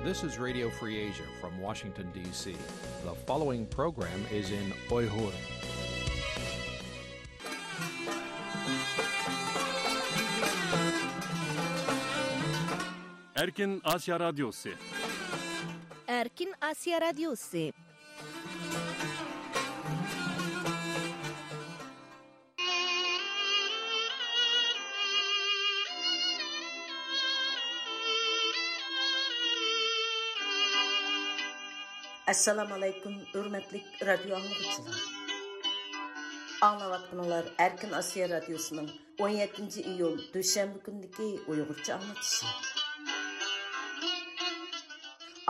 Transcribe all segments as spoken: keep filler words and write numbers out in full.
This is Radio Free Asia from Washington, D C. The following program is in Uyghur. ئەركىن ئاسىيا رادىيوسى. ئەركىن ئاسىيا رادىيوسى. ئەسسالامۇ ئەلەيكۇم، ھۆرمەتلىك رادىيو ئاڭلىغۇچىلار. ئاڭلاۋاتقىنىڭلار ئەركىن ئاسىيا رادىيوسىنىڭ ئون يەتتىنچى ئىيۇل دۈشەنبە كۈنىدىكى ئۇيغۇرچە ئاڭلىتىشى.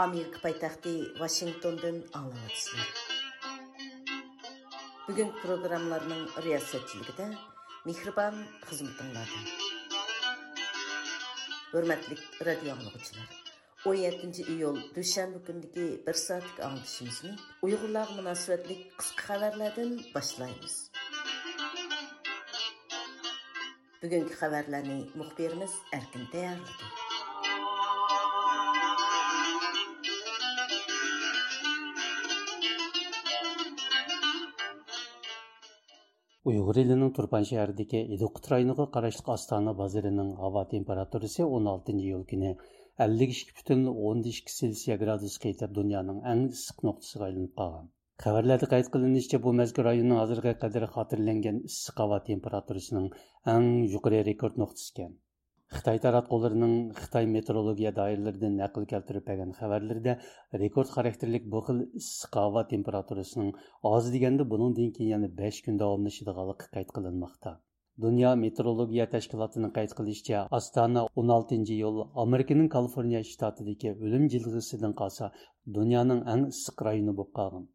ئامېرىكا پايتەختى ۋاشىنگتوندىن ئاڭلاۋاتىسىلەر. بۈگۈنكى پروگراممىلارنىڭ رىياسەتچىلىكىدە مېھرىبان خىزمىتىڭلاردا. ھۆرمەتلىك رادىيو ئاڭلىغۇچىلار، ئون يەتتىنچى ئىيۇل دۈشەنبە كۈنىدىكى بىر سائەتلىك ئاڭلىتىشىمىزنى ئۇيغۇرلارغا مۇناسىۋەتلىك قىسقا خەۋەرلەردىن باشلايمىز. بۈگۈنكى خەۋەرلەرنى مۇخبىرىمىز ئەركىن تەييارلىدى. ئۇيغۇر ئېلىنىڭ تۇرپان شەھىرىدىكى ئىدىقۇت رايونىغا قاراشلىق ئاستانە بازىرىنىڭ ھاۋا تېمپېراتۇرىسى ئون ئالتىنچى ئىيۇل كۈنى ئەللىك ئىككى پۈتۈن ئوندىن ئىككى سېلسىيە گرادۇسقا يېتىپ، دۇنيانىڭ ئەڭ ئىسسىق نۇقتىسىغا ئايلىنىپ قالغان. خەۋەرلەردە قەيت قىلىنىشىچە، بۇ مەزكۇر رايوننىڭ ھازىرغا قەدەر خاتىرىلەنگەن ئىسسىق ھاۋا تېمپېراتۇرىسىنىڭ ئەڭ يۇقىرى رېكورت نۇقتىسى ئىكەن. خىتاي تاراتقۇلىرىنىڭ خىتاي مېتېئورولوگىيە دائىرىلىرىدىن نەقىل كەلتۈرۈپ بەرگەن خەۋەرلىرىدە، رېكورت خاراكتېرلىك بۇ خىل ئىسسىق ھاۋا تېمپېراتۇرىسىنىڭ ئاز دېگەندە بۇنىڭدىن كېيىن يەنە بەش كۈن داۋاملىشىدىغانلىقى قەيت قىلىنماقتا. دۇنيا مېتېئورولوگىيە تەشكىلاتىنىڭ قەيت قىلىشىچە، ئاستانە ئون ئالتىنچى ئىيۇل ئامېرىكىنىڭ كالىفورنىيە شتاتىدىكى ئۆلۈم جىلغىسىدىن قالسا، دۇنيانىڭ ئەڭ ئىسسىق رايونى بولۇپ قالغان.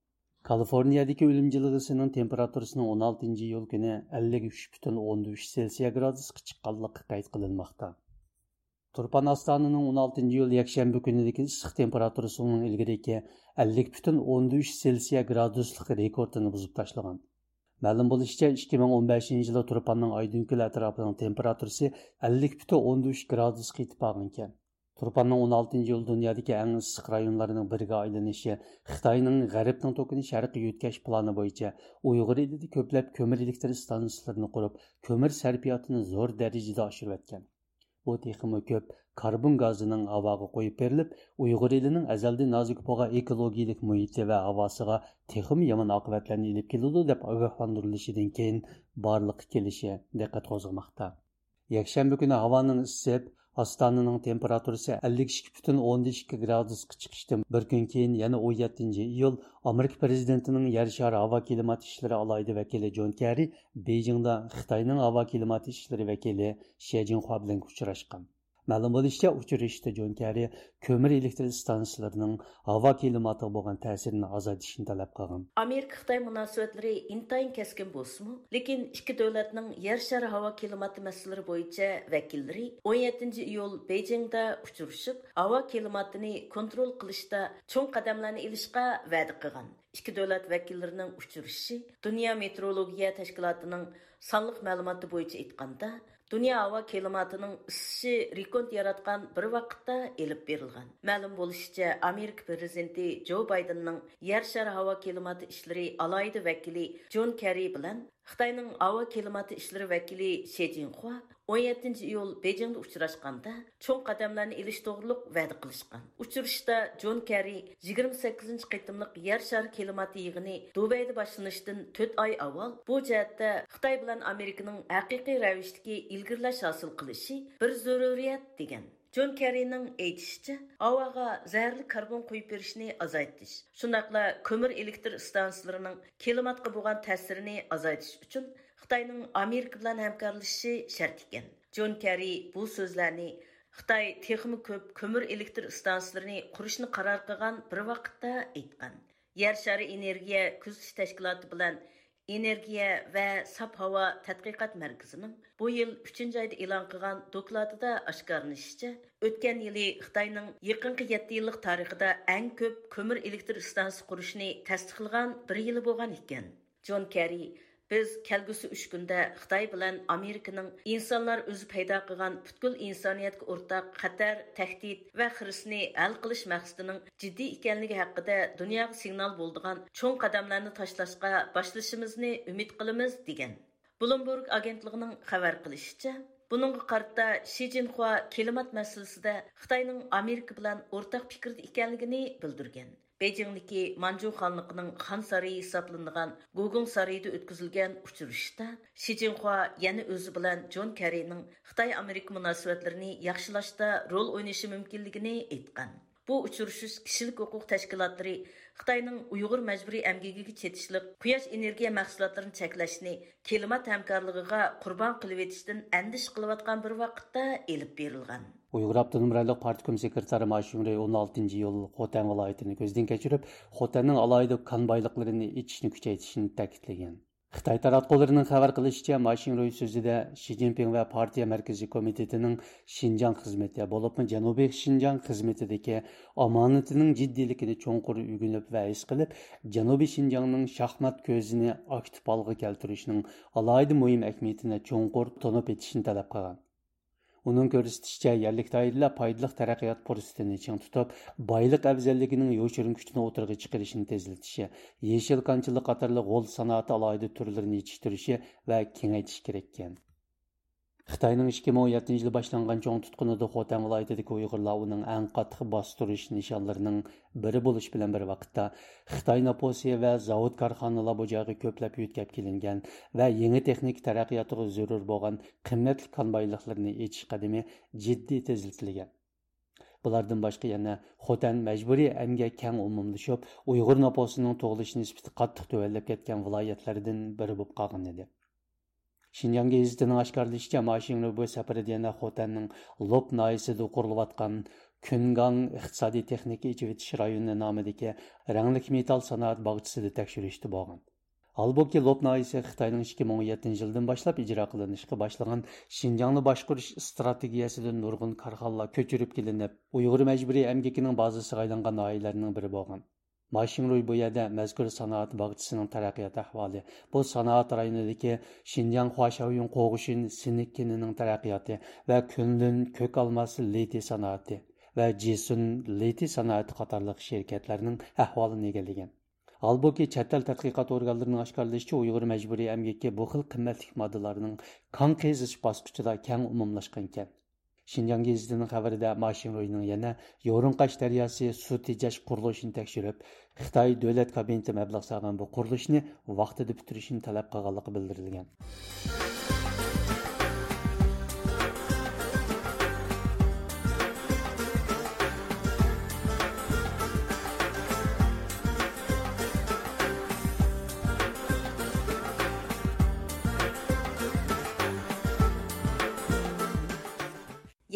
كالىفورنىيەدىكى ئۆلۈم جىلغىسىنىڭ تېمپېراتۇرىسىنىڭ ئون ئالتىنچى ئىيۇل كۈنى ئەللىك ئۈچ پۈتۈن ئوندىن ئۈچ سېلسىيە گرادۇسقا چىققانلىقى قەيت قىلىنماقتا. تۇرپان ئاستانىنىڭ ئون ئالتىنچى ئىيۇل يەكشەنبە كۈنىدىكى ئىسسىق تېمپېراتۇرىسى ئۇنىڭ ئىلگىرىكى ئەللىك پۈتۈن ئوندىن ئۈچ سېلسىيە گرادۇسلۇق رېكورتىنى بۇزۇپ تاشلىغان. مەلۇم بولۇشىچە، ئىككى مىڭ ئون بەشىنچى يىلى تۇرپاننىڭ ئايدىڭكۆل ئەتراپىنىڭ تېمپېراتۇرىسى ئەللىك پۈتۈن ئوندىن ئۈچ گرادۇسقا يېتىپ بارغانىكەن. تۇرپاننىڭ ئون ئالتىنچى ئىيۇل دۇنيادىكى ئەڭ ئىسسىق رايونلارنىڭ بىرىگە ئايلىنىشى خىتاينىڭ غەربنىڭ توكىنى شەرققە يۆتكەش پىلانى بويىچە ئۇيغۇر ئېلىدە كۆپلەپ كۆمۈر ئېلېكتر ئىستانسىلىرىنى قۇرۇپ، كۆمۈر سەرپىياتىنى زور دەرىجىدە ئاشۇرۇۋەتكەن. بۇ تېخىمۇ كۆپ كاربون گازىنىڭ ھاۋاغا قويۇپ بېرىلىپ، ئۇيغۇر ئېلىنىڭ ئەزەلدىن نازۇك بولغان ئېكولوگىيەلىك مۇھىتى ۋە ھاۋاسىغا تېخىمۇ يامان ئاقىۋەتلەرنى ئېلىپ كېلىدۇ، دەپ ئاگاھلاندۇرۇلۇشىدىن كېيىن بارلىققا كېلىشى دىققەت قوزغىماقتا. يەكشەنبە كۈنى ھاۋانىڭ ئىسسىپ، ئاستانىنىڭ تېمپېراتۇرىسى ئەللىك ئىككى پۈتۈن ئوندىن ئىككى گرادۇسقا چىقىشتىن بىر كۈن كېيىن، يەنە ئون يەتتىنچى ئىيۇل، ئامېرىكا پىرېزىدېنتىنىڭ يەر شارى ھاۋا كىلىمات ئىشلىرى ئالاھىدە ۋەكىلى جون كېررى بېيجىڭدا خىتاينىڭ ھاۋا كىلىمات ئىشلىرى ۋەكىلى شې جىنخۇا بىلەن ئۇچراشقان. مەلۇم بولۇشىچە، ئۇچرىشىشتا جون كېررى كۆمۈر ئېلېكتر ئىستانسىلىرىنىڭ ھاۋا كىلىماتىغا بولغان تەسىرىنى ئازايتىشنى تەلەپ قىلغان. ئامېرىكا خىتاي مۇناسىۋەتلىرى ئىنتايىن كەسكىن بولسىمۇ، لېكىن ئىككى دۆلەتنىڭ يەر شارى ھاۋا كىلىماتى مەسىلىلىرى بويىچە ۋەكىللىرى ئون يەتتىنچى ئىيۇل بېيجىڭدا ئۇچرىشىپ، ھاۋا كىلىماتىنى كونترول قىلىشتا چوڭ قەدەملەرنى ئېلىشقا ۋەدە قىلغان. ئىككى دۆلەت ۋەكىللىرىنىڭ ئۇچرىشىشى دۇنيا مېتېئورولوگىيە تەشكىلاتىنىڭ سانلىق مەلۇماتى بويىچە ئېيتقاندا، دۇنيا ھاۋا كىلىماتىنىڭ ئىسسىشى رېكورت ياراتقان بىر ۋاقىتتا ئېلىپ بېرىلغان. مەلۇم بولۇشىچە، ئامېرىكا پىرېزىدېنتى جو بايدېننىڭ يەر شارى ھاۋا كىلىماتى ئىشلىرى ئالاھىدە ۋەكىلى جون كېررى بىلەن خىتاينىڭ ھاۋا كىلىماتى ئىشلىرى ۋەكىلى شې جىنخۇا ئون يەتتىنچى ئىيۇل بېيجىڭدا ئۇچراشقاندا، چوڭ قەدەملەرنى ئېلىش توغرۇلۇق ۋەدە قىلىشقان. ئۇچرىشىشتا جون كېررى يىگىرمە سەككىزىنچى قېتىملىق يەر شارى كىلىماتى يىغىنى دۇبەيدە باشلىنىشتىن تۆت ئاي ئاۋۋال بۇ جەھەتتە خىتاي بىلەن ئامېرىكىنىڭ ھەقىقىي رەۋىشتىكى ئىلگىرىلەش ھاسىل قىلىشى بىر زۆرۈرىيەت، دېگەن. جون كېررىنىڭ ئېيتىشىچە، ھاۋاغا زەھەرلىك كاربون قويۇپ بېرىشنى ئازايتىش، شۇنداقلا كۆمۈر ئېلېكتر ئىستانسىلىرىنىڭ كىلىماتقا بولغان تەسىرىنى ئازايتىش ئۈچۈن خىتاينىڭ ئامېرىكا بىلەن ھەمكارلىشىشى شەرت ئىكەن. جون كېررى بۇ سۆزلەرنى خىتاي تېخىمۇ كۆپ كۆمۈر ئېلېكتر ئىستانسىلىرىنى قۇرۇشنى قارار قىلغان بىر ۋاقىتتا ئېيتقان. يەر شارى ئېنېرگىيە كۆزىتىش تەشكىلاتى بىلەن ئېنېرگىيە ۋە ساپ ھاۋا تەتقىقات مەركىزىنىڭ بۇ يىل ئۈچىنچى ئايدا ئېلان قىلغان دوكلاتىدا ئاشكارىلىنىشىچە، ئۆتكەن يىلى خىتاينىڭ يېقىنقى يەتتە يىللىق تارىخىدا ئەڭ كۆپ كۆمۈر ئېلېكتر ئىستانسىسى قۇرۇشنى تەستىقلىغان بىر يىلى بولغان ئىكەن. جون كېررى بىز كەلگۈسى ئۈچ كۈندە خىتاي بىلەن ئامېرىكىنىڭ ئىنسانلار ئۆزى پەيدا قىلغان پۈتكۈل ئىنسانىيەتكە ئورتاق خەتەر، تەھدىت ۋە خىرىسنى ھەل قىلىش مەقسىتىنىڭ جىددىي ئىكەنلىكى ھەققىدە دۇنياغا سىگنال بولىدىغان چوڭ قەدەملەرنى تاشلاشقا باشلىشىمىزنى ئۈمىد قىلىمىز، دېگەن. بلومبېرگ ئاگېنتلىقىنىڭ خەۋەر قىلىشىچە، بۇنىڭغا قارىتا شى جىنخۇا كىلىمات مەسىلىسىدە خىتاينىڭ ئامېرىكا بىلەن ئورتاق پىكىردە ئىكەنلىكىنى بىلدۈرگەن. بېيجىڭدىكى مانجۇ خانلىقىنىڭ خان سارىيى ھېسابلىنىدىغان گۇگۇڭ سارىيىدا ئۆتكۈزۈلگەن ئۇچرىشىشتا شى جىنخۇا يەنە ئۆزى بىلەن جون كېررىنىڭ خىتاي-ئامېرىكا مۇناسىۋەتلىرىنى ياخشىلاشتا رول ئوينىشى مۇمكىنلىكىنى ئېيتقان. بۇ ئۇچرىشىش كىشىلىك ھوقۇق تەشكىلاتلىرى خىتاينىڭ ئۇيغۇر مەجبۇرىي ئەمگىكىگە چېتىشلىق قۇياش ئېنېرگىيە مەھسۇلاتلىرىنى چەكلەشنى كىلىمات ھەمكارلىقىغا قۇربان قىلىۋېتىشتىن ئەندىشە قىلىۋاتقان بىر ۋاقىتتا ئېلىپ بېرىلغان. ئۇيغۇر ئاپتونوم رايونلۇق پارتكوم سېكرېتارى ما شىڭرۇي ئون ئالتىنچى ئىيۇل خوتەنگە ۋىلايىتىنى كۆزدىن كەچۈرۈپ، خوتەننىڭ ئالاھىدە كان بايلىقلىرىنى ئېچىشنى كۈچەيتىشنى تەكىتلىگەن. خىتاي تاراتقۇلىرىنىڭ خەۋەر قىلىشىچە، ما شىڭرۇي سۆزىدە شى جىنپىڭ ۋە پارتىيە مەركىزىي كومىتېتىنىڭ شىنجاڭ خىزمىتى، بولۇپمۇ جەنۇبىي شىنجاڭ خىزمىتىدىكى ئامانىتىنىڭ جىددىيلىكىنى چوڭقۇر ئۆگىنىپ ۋە ھېس قىلىپ، جەنۇبىي شىنجاڭنىڭ شاھمات كۆزىنى ئاكتىپ ھالغا كەلتۈرۈشنىڭ ئالاھىدە مۇھىم ئەھمىيىتىنى چوڭقۇر تونۇپ يېتىشنى تەلەپ قىلغان. ئۇنىڭ كۆرسىتىشىچە، يەرلىك دائىرىلەر پايدىلىق تەرەققىيات پۇرسىتىنى چىڭ تۇتۇپ، بايلىق ئەۋزەللىكىنىڭ يوشۇرۇن كۈچىنى ئوتتۇرىغا چىقىرىشنى تېزلىتىشى، يېشىل كانچىلىق قاتارلىق غول سانائىتى ئالاھىدە تۈرلىرىنى يېتىشتۈرۈشى ۋە كېڭەيتىشى كېرەككەن. خىتاينىڭ ئىككى مىڭ ئون يەتتىنچى يىلى باشلانغان چوڭ تۇتقۇنىدا خوتەن ۋىلايىتىدىكى ئۇيغۇرلار ئۇنىڭ ئەڭ قاتتىق باستۇرۇش نىشانلىرىنىڭ بىرى بولۇش بىلەن بىر ۋاقىتتا، خىتاي نوپۇسى ۋە زاۋۇت كارخانىلار بۇ جايغا كۆپلەپ يۆتكەپ كېلىنگەن ۋە يېڭى تېخنىكا تەرەققىياتىغا زۆرۈر بولغان قىممەتلىك كان بايلىقلىرىنى ئېچىش قەدىمى جىددىي تېزلىتىلگەن. بۇلاردىن باشقا يەنە خوتەن مەجبۇرىي ئەمگەك كەڭ ئومۇملىشىپ، ئۇيغۇر نوپۇسىنىڭ تۇغۇلۇش نىسبىتى قاتتىق تۆۋەنلەپ كەتكەن ۋىلايەتلەردىن بىرى بولۇپ قالغان ئىدى. شىنجاڭ گېزىتىنىڭ ئاشكارىلىشىچە، ما شىڭرۇي بۇ سەپىرىدە يەنە خوتەننىڭ لوپ ناھىيەسىدە قۇرۇلۇۋاتقان كۈنگاڭ ئىقتىسادىي تېخنىكا ئېچىۋېتىش رايونى نامىدىكى رەڭلىك مېتال سانائەت باغچىسىدا تەكشۈرۈشتە بولغان. ھالبۇكى، لوپ ناھىيەسى خىتاينىڭ ئىككى مىڭ ئون يەتتىنچى يىلدىن باشلاپ ئىجرا قىلىنىشقا باشلىغان شىنجاڭنى باشقۇرۇش ئىستراتېگىيەسىدىن نۇرغۇن كارخانىلار كۆچۈرۈپ كېلىنىپ، ئۇيغۇر مەجبۇرىي ئەمگىكىنىڭ بازىسىغا ئايلانغان ناھىيەلەرنىڭ بىرى بولغان. ما شىڭرۇي بۇ يەردە مەزكۇر سانائەت باغچىسىنىڭ تەرەققىيات ئەھۋالى، بۇ سانائەت رايونىدىكى شىنجاڭ خۇاشياۋيۈن قوغۇشىن سىنك كېنىنىڭ تەرەققىياتى ۋە كۈنلۈن كۆك ئالماس لىتىي سانائىتى ۋە جىسۈن لىتىي سانائىتى قاتارلىق شىركەتلەرنىڭ ئەھۋالىنى ئىگىلىگەن. ھالبۇكى، چەت ئەل تەتقىقات ئورگانلىرىنىڭ ئاشكارىلىشىچە، ئۇيغۇر مەجبۇرىي ئەمگىكى بۇ خىل قىممەتلىك ماددىلارنىڭ كان قېزىش باسقۇچىدا كەڭ ئومۇملاشقان ئىكەن. شىنجاڭ گېزىتىنىڭ خەۋىرىدە، ما شىڭرۇينىڭ يەنە يورۇنقاش دەرياسى سۇ تېجەش قۇرۇلۇشىنى تەكشۈرۈپ، خىتاي دۆلەت كابىنېتى مەبلەغ سالغان بۇ قۇرۇلۇشنى ۋاقتىدا پۈتتۈرۈشنى تەلەپ قىلغانلىقى بىلدۈرۈلگەن.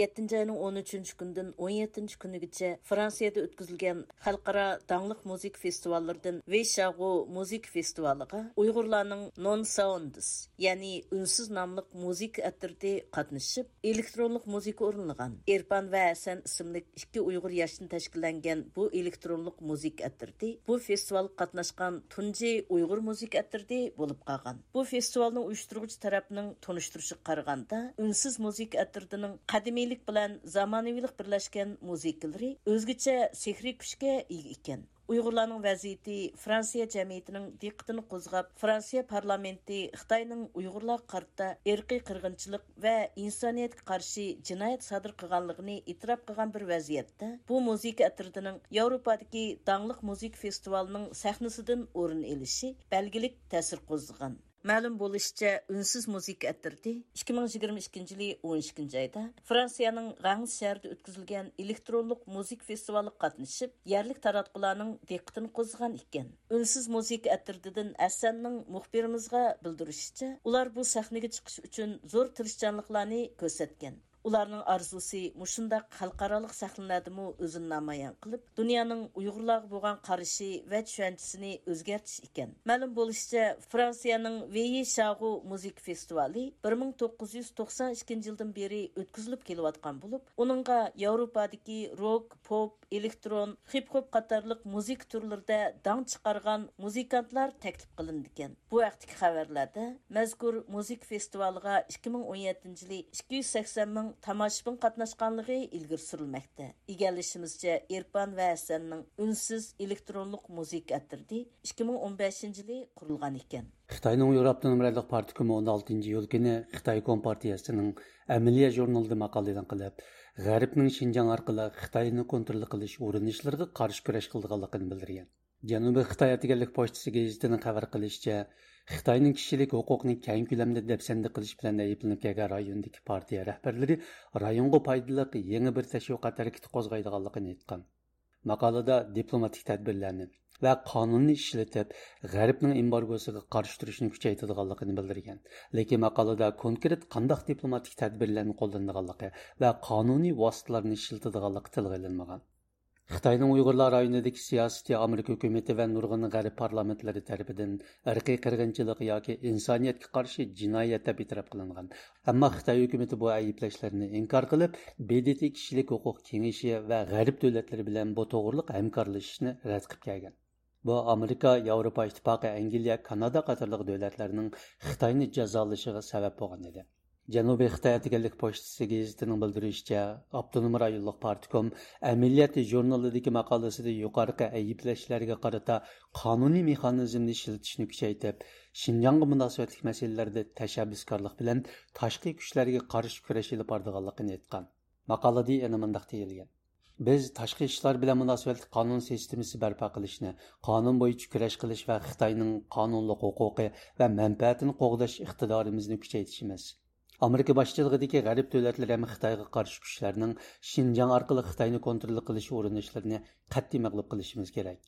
يەتتىنچى ئاينىڭ ئون ئۈچىنچى كۈنىدىن ئون يەتتىنچى كۈنىگىچە فرانسىيەدە ئۆتكۈزۈلگەن خەلقئارا داڭلىق مۇزىكا فېستىۋاللىرىدىن ۋېيشاغۇ مۇزىكا فېستىۋالىغا ئۇيغۇرلارنىڭ نون ساوندس، يەنى ئۈنسىز ناملىق مۇزىكا ئەترىتى قاتنىشىپ، ئېلېكترونلۇق مۇزىكا ئورۇنلىغان. ئېرپان ۋە ھەسەن ئىسىملىك ئىككى ئۇيغۇر ياشتىن تەشكىللەنگەن بۇ ئېلېكترونلۇق مۇزىكا ئەترىتى بۇ فېستىۋالغا قاتناشقان تۇنجى ئۇيغۇر مۇزىكا ئەترىتى بولۇپ قالغان. بۇ فېستىۋالنىڭ ئۇيۇشتۇرغۇچى تەرەپنىڭ تونۇشتۇرۇشىغا قارىغاندا، ئۈنسىز مۇزىكا ئەترىتىنىڭ قەدىمىيلىك بىلەن زامانىۋىلىق بىرلەشكەن مۇزىكىلىرى ئۆزگىچە سېھرىي كۈچكە ئىگە ئىكەن. ئۇيغۇرلارنىڭ ۋەزىيىتى فرانسىيە جەمئىيىتىنىڭ دىققىتىنى قوزغاپ، فرانسىيە پارلامېنتى خىتاينىڭ ئۇيغۇرلارغا قارىتا ئىرقىي قىرغىنچىلىق ۋە ئىنسانىيەتكە قارشى جىنايەت سادىر قىلغانلىقىنى ئېتىراپ قىلغان بىر ۋەزىيەتتە، بۇ مۇزىكا ئەترىتىنىڭ ياۋروپادىكى داڭلىق مۇزىكا فېستىۋالىنىڭ سەھنىسىدىن ئورۇن ئېلىشى بەلگىلىك تەسىر قوزغىغان. مەلۇم بولۇشىچە، ئۈنسىز مۇزىكا ئەترىتى ئىككى مىڭ يىگىرمە ئىككىنچى يىلى ئون ئىككىنچى ئايدا فرانسىيەنىڭ غەنس شەھىرىدە ئۆتكۈزۈلگەن ئېلېكترونلۇق مۇزىكا فېستىۋالىغا قاتنىشىپ، يەرلىك تاراتقۇلارنىڭ دىققىتىنى قوزغىغان ئىكەن. ئۈنسىز مۇزىكا ئەترىتىدىن ھەسەننىڭ مۇخبىرىمىزغا بىلدۈرۈشىچە، ئۇلار بۇ سەھنىگە چىقىش ئۈچۈن زور تىرىشچانلىقلارنى كۆرسەتكەن. ئۇلارنىڭ ئارزۇسى مۇشۇنداق خەلقئارالىق سەھنىلەردىمۇ ئۆزىنى نامايان قىلىپ، دۇنيانىڭ ئۇيغۇرلارغا بولغان قارىشى ۋە چۈشەنچىسىنى ئۆزگەرتىش ئىكەن. مەلۇم بولۇشىچە، فرانسىيەنىڭ ۋېيى شاغۇ مۇزىكا فېستىۋالى بىر مىڭ توققۇز يۈز توقسان ئىككىنچى يىلدىن بېرى ئۆتكۈزۈلۈپ كېلىۋاتقان بولۇپ، ئۇنىڭغا ياۋروپادىكى روك، پوپ، ئېلېكترون، خىپ-خوپ قاتارلىق مۇزىكا تۈرلىرىدە داڭ چىقارغان مۇزىكانتلار تەكلىپ قىلىنىدىكەن. بۇ ھەقتىكى خەۋەرلەردە مەزكۇر مۇزىكا فېستىۋالىغا ئىككى مىڭ ئون يەتتىنچى يىلى ئىككى يۈز سەكسەن مىڭ تاماشىبىن قاتناشقانلىقى ئىلگىرى سۈرۈلمەكتە. ئىگىلىشىمىزچە، ئېرپان ۋە ھەسەننىڭ ئۈنسىز ئېلېكترونلۇق مۇزىكا ئەترىتى ئىككى مىڭ ئون بەشىنچى يىلى قۇرۇلغان ئىكەن. خىتاينىڭ ئۇيغۇر ئاپتونوم رايونلۇق پارتكومى ئون ئالتىنچى ئىيۇل كۈنى خىتاي كومپارتىيەسىنىڭ ئەمەلىيە ژۇرنىلىدا ماقالە ئېلان قىلىپ، غەربنىڭ شىنجاڭ ئارقىلىق خىتاينى كونترول قىلىش ئۇرۇنۇشلىرىغا قارشى كۈرەش قىلىدىغانلىقىنى بىلدۈرگەن. جەنۇبىي خىتاي ئەتىگەنلىك پوچتىسى گېزىتىنىڭ خەۋەر قىلىشىچە، خىتاينىڭ كىشىلىك ھوقۇقنى كەڭ كۆلەمدە دەپسەندە قىلىش بىلەن ئەيىبلىنىپ كەلگەن رايوندىكى پارتىيە رەھبەرلىرى رايونغا پايدىلىق يېڭى بىر تەشۋىقات ھەرىكىتى قوزغايدىغانلىقىنى ئېيتقان. ماقالىدا دىپلوماتىك تەدبىرلەرنى ۋە قانۇننى ئىشلىتىپ، غەربنىڭ ئېمبارگوسىغا قارشى تۇرۇشنى كۈچەيتىدىغانلىقىنى بىلدۈرگەن. لېكىن ماقالىدا كونكرېت قانداق دىپلوماتىك تەدبىرلەرنى قوللىنىدىغانلىقى ۋە قانۇنىي ۋاسىتىلارنى ئىشلىتىدىغانلىقى تىلغا ئېلىنمىغان. خىتاينىڭ ئۇيغۇرلار رايونىدىكى سىياسىتى ئامېرىكا ھۆكۈمىتى ۋە نۇرغۇن غەرب پارلامېنتلىرى تەرىپىدىن ئىرقىي قىرغىنچىلىق ياكى ئىنسانىيەتكە قارشى جىنايەت دەپ ئېتىراپ قىلىنغان. ئەمما خىتاي ھۆكۈمىتى بۇ ئەيىبلەشلەرنى ئىنكار قىلىپ، ب د ت كىشىلىك ھوقۇق كېڭىشى ۋە غەرب دۆلەتلىرى بىلەن بۇ توغرىلىق ھەمكارلىشىشنى رەت قىلىپ كەلگەن. بۇ ئامېرىكا، ياۋروپا ئىتتىپاقى، ئەنگلىيە، كانادا قاتارلىق دۆلەتلەرنىڭ خىتاينى جازالىشىغا سەۋەب بولغان ئىدى. جەنۇبىي خىتاي ئەتىگەنلىك پوچتىسى گېزىتىنىڭ بىلدۈرۈشىچە، ئاپتونوم رايونلۇق پارتكوم ئەمەلىيەت ژۇرنىلىدىكى ماقالىسىدە يۇقىرىقى ئەيىبلەشلەرگە قارىتا قانۇنىي مېخانىزمنى ئىشلىتىشنى كۈچەيتىپ، شىنجاڭغا مۇناسىۋەتلىك مەسىلىلەردە تەشەببۇسكارلىق بىلەن تاشقى كۈچلەرگە قارشى كۈرەش ئېلىپ بارىدىغانلىقىنى ئېيتقان. ماقالىدە يەنە مۇنداق دېيىلگەن: بىز تاشقى ئىشلار بىلەن مۇناسىۋەتلىك قانۇن سىستېمىسى بەرپا قىلىشنى، قانۇن بويىچە كۈرەش قىلىش ۋە خىتاينىڭ قانۇنلۇق ھوقۇقى ۋە مەنپەئەتىنى قوغداش ئىقتىدارىمىزنى كۈچەيتىشىمىز، ئامېرىكا باشچىلىقىدىكى غەرب دۆلەتلىرى ھەم خىتايغا قارشى كۈچلەرنىڭ شىنجاڭ ئارقىلىق خىتاينى كونترول قىلىش ئۇرۇنۇشلىرىنى قەتئىي مەغلۇپ قىلىشىمىز كېرەك.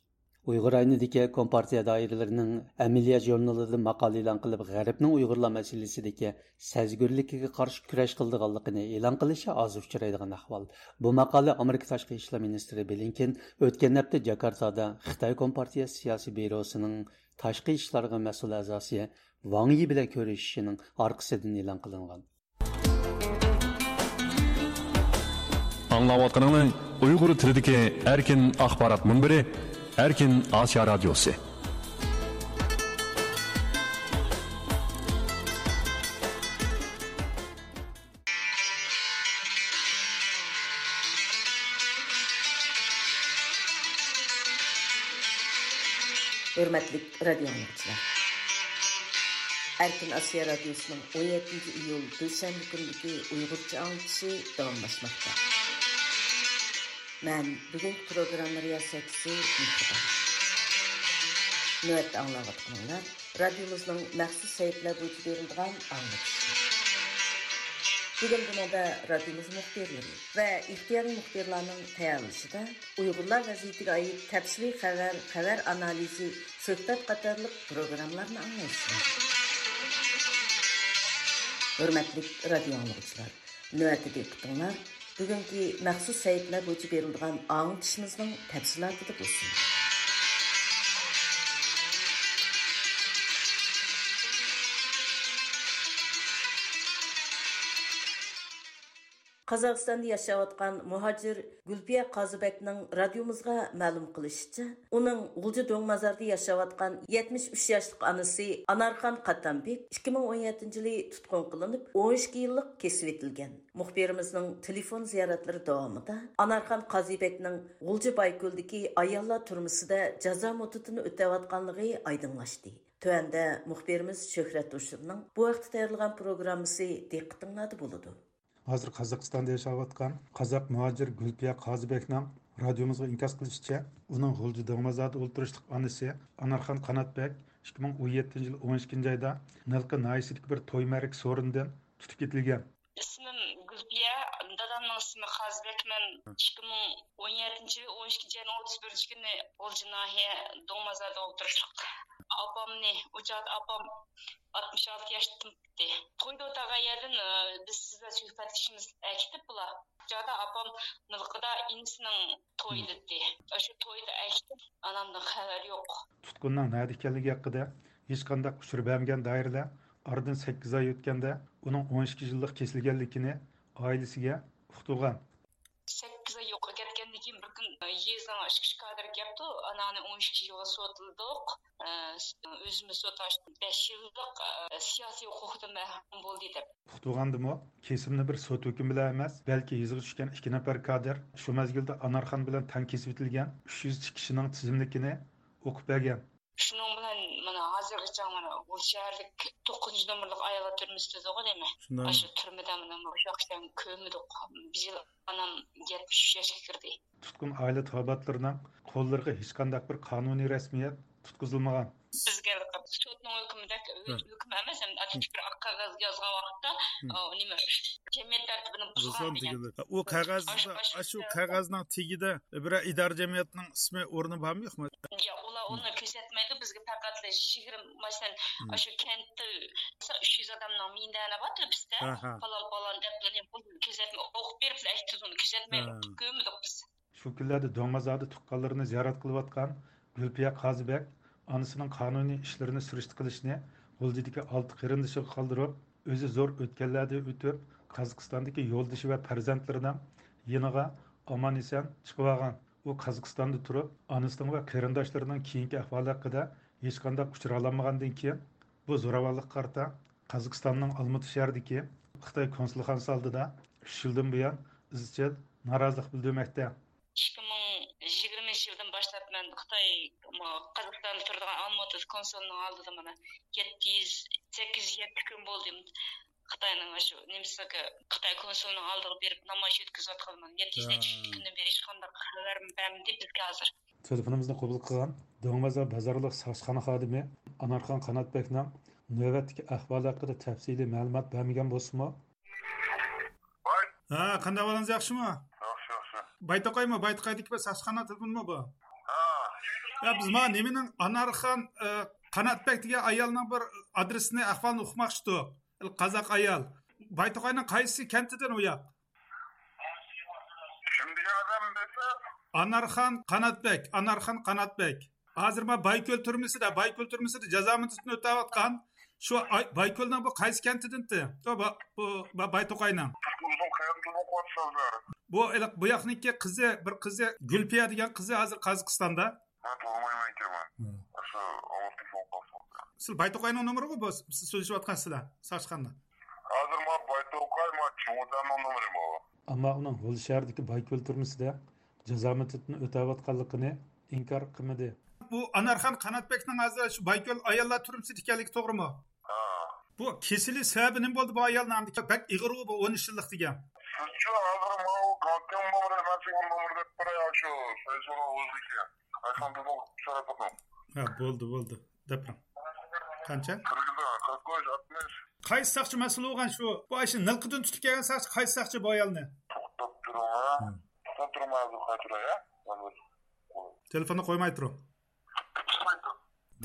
ئۇيغۇر رايونىدىكى كومپارتىيە دائىرىلىرىنىڭ ئەمەلىيەت ژۇرنىلىدا ماقالە ئېلان قىلىپ، غەربنىڭ ئۇيغۇرلار مەسىلىسىدىكى سەزگۈرلۈكىگە قارشى كۈرەش قىلىدىغانلىقىنى ئېلان قىلىشى ئاز ئۇچرايدىغان ئەھۋال. بۇ ماقالە ئامېرىكا تاشقى ئىشلار مىنىستىرى بلىنكېن ئۆتكەن ھەپتە جاكارتادا خىتاي كومپارتىيە سىياسىي بيۇروسىنىڭ تاشقى ئىشلارغا مەسئۇل ئەزاسى ۋاڭ يى بىلەن كۆرۈشۈشىنىڭ ئارقىسىدىن ئېلان قىلىنغان. ئاڭلاۋاتقىنىڭلار ئۇيغۇر تىلىدىكى ئەركىن ئاخبارات مۇنبىرى، ئەركىن ئاسىيا رادىيوسى. ھۆرمەتلىك رادىيو ئاڭلىغۇچىلار! ئەركىن ئاسىيا رادىيوسىنىڭ ئون يەتتىنچى ئىيۇل دۈشەنبە كۈنىدىكى ئۇيغۇرچە ئاڭلىتىشى داۋاملاشماقتا. مەن بۈگۈنكى پروگرامما رىياسەتچىسى مېھرىبان. نۆۋەتتە ئاڭلاۋاتقىنىڭلار رادىيومىزنىڭ مەخسۇس سەھىپىلەر بويىچە بېرىلىدىغان ئاڭلىتىشى. بۈگۈن بۇنىڭدا رادىيومىز مۇخبىرلىرى ۋە ئىختىيارىي مۇخبىرلارنىڭ تەييارلىشىدا ئۇيغۇرلار ۋەزىيىتىگە ئائىت تەپسىلىي خەۋەر، خەۋەر ئانالىزى، سۆھبەت قاتارلىق پروگراممىلارنى ئاڭلايسىلەر. ھۆرمەتلىك رادىيو ئاڭلىغۇچىلار! نۆۋەتتە دىققىتىڭلار بۈگۈنكى مەخسۇس سەھىپىلەر بويىچە بېرىلىدىغان ئاڭلىتىشىمىزنىڭ تەپسىلاتىدا بولسۇن. قازاقىستاندا ياشاۋاتقان مۇھاجىر گۈلپىيە قازىبەكنىڭ رادىيومىزغا مەلۇم قىلىشىچە، ئۇنىڭ غۇلجا دۆڭمازاردا ياشاۋاتقان يەتمىش ئۈچ ياشلىق ئانىسى ئانارخان قاتامبېك ئىككى مىڭ ئون يەتتىنچى يىلى تۇتقۇن قىلىنىپ، ئون ئىككى يىللىق كېسىۋېتىلگەن. مۇخبىرىمىزنىڭ تېلېفون زىيارەتلىرى داۋامىدا ئانارخان قازىبەكنىڭ غۇلجا بايكۆلدىكى ئاياللار تۈرمىسىدە جازا مۇددىتىنى ئۆتەۋاتقانلىقى ئايدىڭلاشتى. تۆۋەندە مۇخبىرىمىز شۆھرەت ھوشۇرنىڭ بۇ ھەقتە تەييارلىغان پروگراممىسى دىققىتىڭلاردا بولىدۇ. ھازىر قازاقىستاندا ياشاۋاتقان قازاق مۇھاجىر گۈلپىيە قازىبەكنىڭ رادىيومىزغا ئىنكاس قىلىشىچە، ئۇنىڭ غۇلجا دۆڭمازاردا ئولتۇرۇشلۇق ئانىسى ئانارخان قاناتبەك ئىككى مىڭ ئون يەتتىنچى يىل ئون ئىككىنچى ئايدا نىلقا ناھىيەسىدىكى بىر توي مەرىكە سورۇنىدىن تۇتۇپ كېتىلگەن. ئىسمىم گۈلپىيە، دادامنىڭ ئىسمى قازىبەكمەن. ئىككى مىڭ ئون يەتتىنچى يىل ئون ئىككىنچى ئاينىڭ ئوتتۇز بىرىنچى كۈنى غۇلجا ناھىيە دۆڭمازاردا ئولتۇرۇشلۇق ئاپامنى، ئۇ چاغدا ئاپام ئاتمىش ئالتە ياشتا تۇرۇپتى. تويدا ئولتۇرغان يەردىن، ئە، بىز سىزلەر سۆھبەتلىشىمىز ئەكېتىپ بۇلار. ئۇ چاغدا ئاپام مىلقىدا ئىنىسىنىڭ تويىدىتى. ئاشۇ تويدا ئەكېتىپ، ئانامدىن خەۋەر يوق. تۇتقۇننىڭ نەدە ئىكەنلىكى ھەققىدە ھېچقانداق ئۇچۇر بەرمىگەن دائىرىلەر ئارىدىن سەككىز ئاي ئۆتكەندە، ئۇنىڭ ئون ئىككى يىللىق كېسىلگەنلىكىنى ئائىلىسىگە ئۇقتۇرغان. سەككىز ئاي يوقاپ كەتكەندىن كېيىن، بىر كۈن، ئە، يېزىنىڭ ئىچكى ئىش كادىرى كەپتۇ، ئاناڭنى ئون ئىككى يىلغا سوتلىدۇق، ئە، ئۆزىمىز سوت ئاچتۇق، بەش يىللىق، ئە، سىياسىي ھوقۇقىدىن مەھرۇم بولدى، دەپ. ئۇقتۇرغاندىمۇ، كېسىمنى بىر سوت ھۆكمى بىلەن ئەمەس، بەلكى يېزىغا چۈشكەن ئىككى نەپەر كادىر، شۇ مەزگىلدە ئانارخان بىلەن تەڭ كېسىۋېتىلگەن ئۈچ يۈز چىكىشىنىڭ تىزىملىكىنى ئوقۇپ بەرگەن. شۇنىڭ بىلەن مانا ھازىرغىچە مانا بۇ شەھەرلىك توققۇزىنچى نومۇرلۇق ئاياللار تۈرمىسى دېدىغۇ دەيمەن. شۇنداقمۇ؟ ئاشۇ تۈرمىدە مانا مۇشۇ ۋاقىتتا كۆرمىدۇق. بىر يىل ئانام يەتمىش ئۈچ ياشقا كىردى. تۇتقۇن ئائىلە تاۋابىئاتلىرىنىڭ قوللىرىغا ھېچقانداق بىر قانۇنىي رەسمىيەت تۇتقۇزۇلمىغان. بىزگە سوتنىڭ ھۆكمىدەك، ھۆكۈم ئەمەس، ئەمدى ئاددىي بىر ئاق قەغەز يازغان ۋاقىتتا، ئۇ نېمە، جەمئىيەت تەرتىپىنى بۇزغان دېگەن. ئۇ قەغەزدە، ئاشۇ، ئاشۇ ئاشۇ قەغەزنىڭ تېگىدە بىرەر ئىدارە جەمئىيەتنىڭ ئىسمى، ئورنى بارمۇ، يوقمۇ؟ يا، ئۇلار ئۇنى كۆرسەتمەيدۇ بىزگە، پەقەتلا يىگىرمە، مەسىلەن، ئاشۇ كەنتتە ئۈچ يۈز ئادەمنىڭ مىندەرى بار تۆپىسىدە، پالان، پالان دەپ، بۇنى كۆرسەتمەي، ئوقۇپ بېرىپلا ئەكېتىدۇ، ئۇنى كۆرسەتمەيدۇ، كۆرمىدۇق بىز. شۇ كۈنلەردە دۆڭمازادا تۇغقانلىرىنى زىيارەت قىلىۋاتقان گۈلپىيە قازىبەگ ئانىسىنىڭ قانۇنىي ئىشلىرىنى سۈرۈشتە قىلىشنى غۇلجىدىكى ئالتە قېرىندىشىغا قالدۇرۇپ، ئۆزى زور ئۆتكەللەردىن ئۆتۈپ، قازاقىستاندىكى يولدىشى ۋە پەرزەنتلىرىنىڭ يېنىغا ئامان-ئېسەن چىقىۋالغان. ئۇ قازاقىستاندا تۇرۇپ، ئانىسىنىڭ ۋە قېرىنداشلىرىنىڭ كېيىنكى ئەھۋالى ھەققىدە ھېچقانداق ئۇچۇر ئالالمىغاندىن كېيىن، بۇ زوراۋانلىققا قارىتا قازاقىستاننىڭ ئالمۇتا شەھىرىدىكى خىتاي كونسۇلخانىسى ئالدىدا ئۈچ يىلدىن بۇيان ئىزچىل نارازىلىق بىلدۈرمەكتە. ئىككى مىڭ يىگىرمىنچى يىلدىن باشلاپ مەن خىتاي، قازاقىستاندا تۇرىدىغان ئالمۇتا كونسۇلىنىڭ ئالدىدا مانا يەتتە يۈز، سەككىز يۈز يەتتە كۈن بولدى. خىتاينىڭ شۇ نېمىسىگە، خىتاي كونسۇلىنىڭ ئالدىغا بېرىپ نامايىش ئۆتكۈزۈۋاتقىلى مانا يەتتە يۈز نەچچە كۈندىن بېرى ھېچقانداق خەۋەر بەرمىدى بىزگە ھازىر. تېلېفونىمىزنى قوبۇل قىلغان دۆڭمازا بازارلىق ساقچىخانا خادىمى ئانارخان قاناتبەگنىڭ نۆۋەتتىكى ئەھۋالى ھەققىدە تەپسىلىي مەلۇمات بەرمىگەن بولسىمۇ، ھە، قانداق ئەھۋالىڭىز، ياخشىمۇ؟ ياخشى، ياخشى. بايتوقايمۇ؟ بايتوقايدىكى بىر ساقچىخانا تېلېفونمۇ بۇ؟ ھە. يا، بىز مانا نېمىنىڭ، ئانارخان، ئە، قاناتبەگ دېگەن ئايالنىڭ بىر ئادرېسىنى، ئەھۋالىنى ئۇقماقچىدۇق. قازاق ئايال. بايتوقاينىڭ قايسى كەنتىدىن ئۇ ياق؟ كىم دېگەن ئادەم دېسە؟ ئانارخان قاناتبەگ، ئانارخان قاناتبەگ. ھازىر ما بايكۆل تۈرمىسىدە، بايكۆل تۈرمىسىدە جازا مۇددىتىنى ئۆتەۋاتقان. شۇ ئاي-، بايكۆلنىڭ بۇ قايسى كەنتىدىنتى؟ بۇ، بۇ، بۇ بايتوقاينىڭ. بۇ ياقنىڭكى قىزى، بىر قىزى، گۈلپىيە دېگەن قىزى ھازىر قازاقىستاندا. ھە، تونۇمايمەن ئىكەنمەن. ھە. ئاشۇ ئاۋۇتتىن سوڭ قالسىڭىز. سىز بايتوقاينىڭ نومۇرىغۇ بۇ، سىز سۆزلىشىۋاتقان سىلەر، ساقچىخانىدا. ھازىر ما بايتوقاي، ما چوڭتەننىڭ نومۇرى بۇ. ئەمما ئۇنىڭ غۇلجا شەھىرىدىكى بايكۆل تۈرمىسىدە جازا مۇددىتىنى ئۆتەۋاتقانلىقىنى ئىنكار قىلمىدى. بۇ ئانارخان قاناتبەگنىڭ ھازىر شۇ بايكۆل ئاياللار تۈرمىسىدە ئىكەنلىكى توغرىمۇ؟ ھە. بۇ كېسىلى سەۋەبى نېمە بولدى بۇ ئايالنىڭ؟ ئەمدى بەك ئېغىرغۇ بۇ ئون ئۈچ يىللىق دېگەن. سىزچۇ ھازىر ماۋۇ گاڭكەڭ نومۇرى، مەن سىزگە نومۇر دەپ بېرەي، شۇ فېيسبۇكنىڭ ئۆزىدىكى. ئايسان بىزنىڭ سۈرەتلىكىڭ. ھە، بولدى، بولدى. دەپ بېرىڭ. قانچە؟ قىرىك، قىرىك ئۈچ، ئاتمىش. قايسى ساقچى مەسئۇل بولغان شۇ؟ بۇ ئاشۇ نىلقىدىن تۇتۇپ كەلگەن ساقچى، قايسى ساقچى بۇ ئايالنى؟ توختاپ تۇرۇڭ، ھە. توختاپ تۇرۇڭ، ھازىر قايتۇراي، ھە. تېلېفوننى قويماي تۇرۇڭ.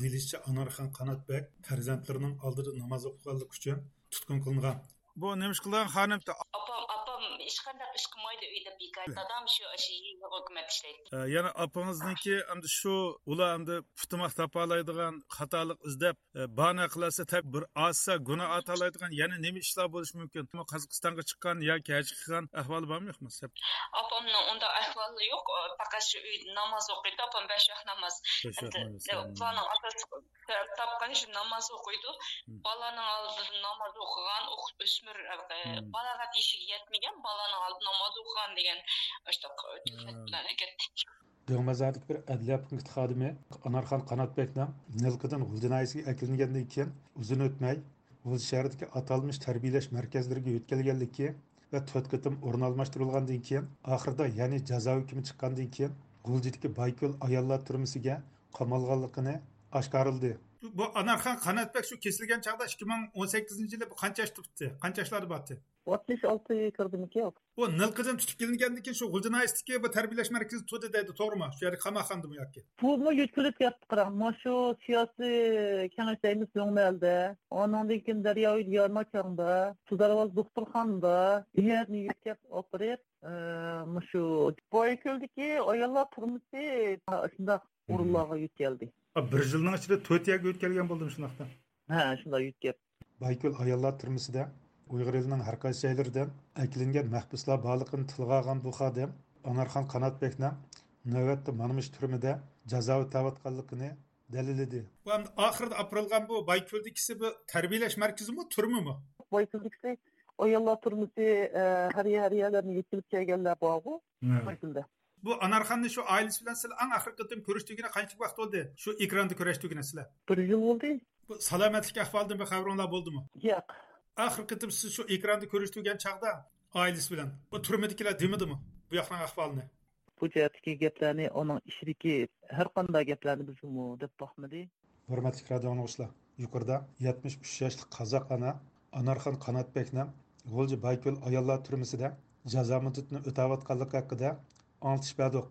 دېيىلىشىچە، ئانارخان قاناتبەگ پەرزەنتلىرىنىڭ ئالدىدا ناماز ئوقۇغانلىقى ئۈچۈن تۇتقۇن قىلىنغان. بۇ نېمە ئىش قىلغان خانىم؟ ئاپام، ئاپام ھېچقانداق ئىش قىلمايدۇ ئۆيدە بىكار. دادام شۇ، شۇ يېزا ھۆكۈمەت ئىشلەيدۇ. ئە، يەنە ئاپىڭىزنىڭكى ئەمدى شۇ، ئۇلار ئەمدى پۇتىماق تاپالايدىغان، خاتالىق ئىزدەپ، ئە، باھانە قىلالىسا، تەب-، بىر ئازسا گۇناھ ئارتالايدىغان يەنە نېمە ئىشلار بولۇشى مۇمكىن؟ قازاقىستانغا چىققان ياكى ھەج قىلغان ئەھۋالى بارمۇ يوقمۇ؟ ئاپامنىڭ ئۇنداق ئەھۋالى يوق. پەقەت شۇ ئۆيدە ناماز ئوقۇيدۇ. ئاپام بەش ۋاق ناماز. بەش ۋاق ناماز. ئەمدى، ئە، بۇلارنىڭ ئاساسلىق سەۋەب تاپقىنى شۇ ناماز ئوقۇيدۇ. بالىنىڭ ئالدىدا ناماز ئوقۇغان، ئوق-، ئۆسمۈر، ئە، بالاغەت يېشىگە يەتمىگەن بالىنىڭ ئالدىدا ناماز ئوقۇغان دېگەن ئاشۇنداق تۆھمەت بىلەن ئەكەتتى. دۆڭمازادىكى بىر ئەدلىيە پونكىتى خادىمى ئانارخان قاناتبەگنىڭ نىلقىدىن غۇلجا ناھىيەسىگە ئەكېلىنگەندىن كېيىن ئۇزۇن ئۆتمەي، غۇلجا شەھىرىدىكى ئاتالمىش تەربىيەلەش مەركەزلىرىگە يۆتكەلگەنلىكى ۋە تۆت قېتىم ئورۇن ئالماشتۇرۇلغاندىن كېيىن، ئاخىرىدا يەنى جازا ھۆكمى چىققاندىن كېيىن، غۇلجىدىكى بايكۆل ئاياللار تۈرمىسىگە قامالغانلىقىنى ئاشكارىلىدى. بۇ ئانارخان قاناتبەك شۇ كېسىلگەن چاغدا ئىككى مىڭ ئون سەككىزىنچى يىلى بۇ قانچە ياشتا پۈتتى؟ قانچە ياشلاردا بارتى؟ ئاتمىش ئالتە كىردىمىكى. بۇ نىلقىدىن تۇتۇپ كېلىنگەندىن كېيىن شۇ غۇلجا ناھىيەسىدىكى بۇ تەربىيەلەش مەركىزى تۇردى دەيدۇ، توغرىمۇ؟ شۇ يەردە قاماقخانىدىمۇ ياكى؟ بۇمۇ يۆتكىلىپ كەتتى، قاراڭ. مانا شۇ سىياسىي كېڭەش دەيمىز لوڭمەلدە. ئانىڭدىن كېيىن دەرياۋى يارماچاڭدا، سۇدارۋاز دوختۇرخانىدا، بۇ يەرنى يۆتكەپ ئاپىرىپ، ئى، مۇشۇ بايكۆلدىكى ئاياللار تۈرمىسى شۇنداق ئورۇنلارغا يۆتكەلدى. بىر يىلنىڭ ئىچىدە تۆت يەرگە يۆتكەلگەن بولدىمۇ شۇنداقتا؟ ھە، شۇنداق يۆتكەپ. بايكۆل ئاياللار تۈرمىسىدە ئۇيغۇر ئېلىنىڭ ھەر قايسى جايلىرىدىن ئەكېلىنگەن مەھبۇسلار بارلىقىنى تىلغا ئالغان بۇ خادىم ئانارخان قاناتبەكنىڭ نۆۋەتتە مانا مۇشۇ تۈرمىدە جازا ئۆتەۋاتقانلىقىنى دەلىللىدى. بۇ ئەمدى ئاخىرىدا ئاپىرىلغان بۇ بايكۆلدىكىسى بۇ تەربىيەلەش مەركىزىمۇ، تۈرمىمۇ؟ بايكۆلدىكىسى ئاياللار تۈرمىسى، ئە، ھەر يەر، ھەر يەرلەرنى يۆتكىلىپ كەلگەنلەر بارغۇ، ھە. بايكۆلدە. بۇ ئانارخاننى شۇ ئائىلىسى بىلەن سىلەر ئەڭ ئاخىرقى قېتىم كۆرۈشتۈرگىنى قانچىلىك ۋاقىت بولدى؟ شۇ ئېكراندا كۆرۈشتۈرگىنى سىلەر؟ بىر يىل بولدى. بۇ سالامەتلىك ئەھۋالىدىن بىر خەۋىرىڭلار بولدىمۇ؟ ياق. ئاخىرقى قېتىم سىز شۇ ئېكراندا كۆرۈشتۈرگەن چاغدا ئائىلىسى بىلەن بۇ تۈرمىدىكىلەر دېمىدىمۇ بۇ ياقنىڭ ئەھۋالىنى؟ بۇ جەھەتتىكى گەپلەرنى، ئۇنىڭ ئىچىدىكى ھەر قانداق گەپلەرنى بىزمۇ دەپ باقمىدى. ھۆرمەتلىك رادىئو ئاڭلىغۇچىلار، يۇقىرىدا يەتمىش ئۈچ ياشلىق قازاق ئانا ئانارخان قاناتبەكنىڭ غۇلجا بايكۆل ئاياللار تۈرمىسىدە جازا مۇددىتىنى ئۆتەۋاتقانلىقى ھەققىدە ئاڭلىتىش بەردۇق.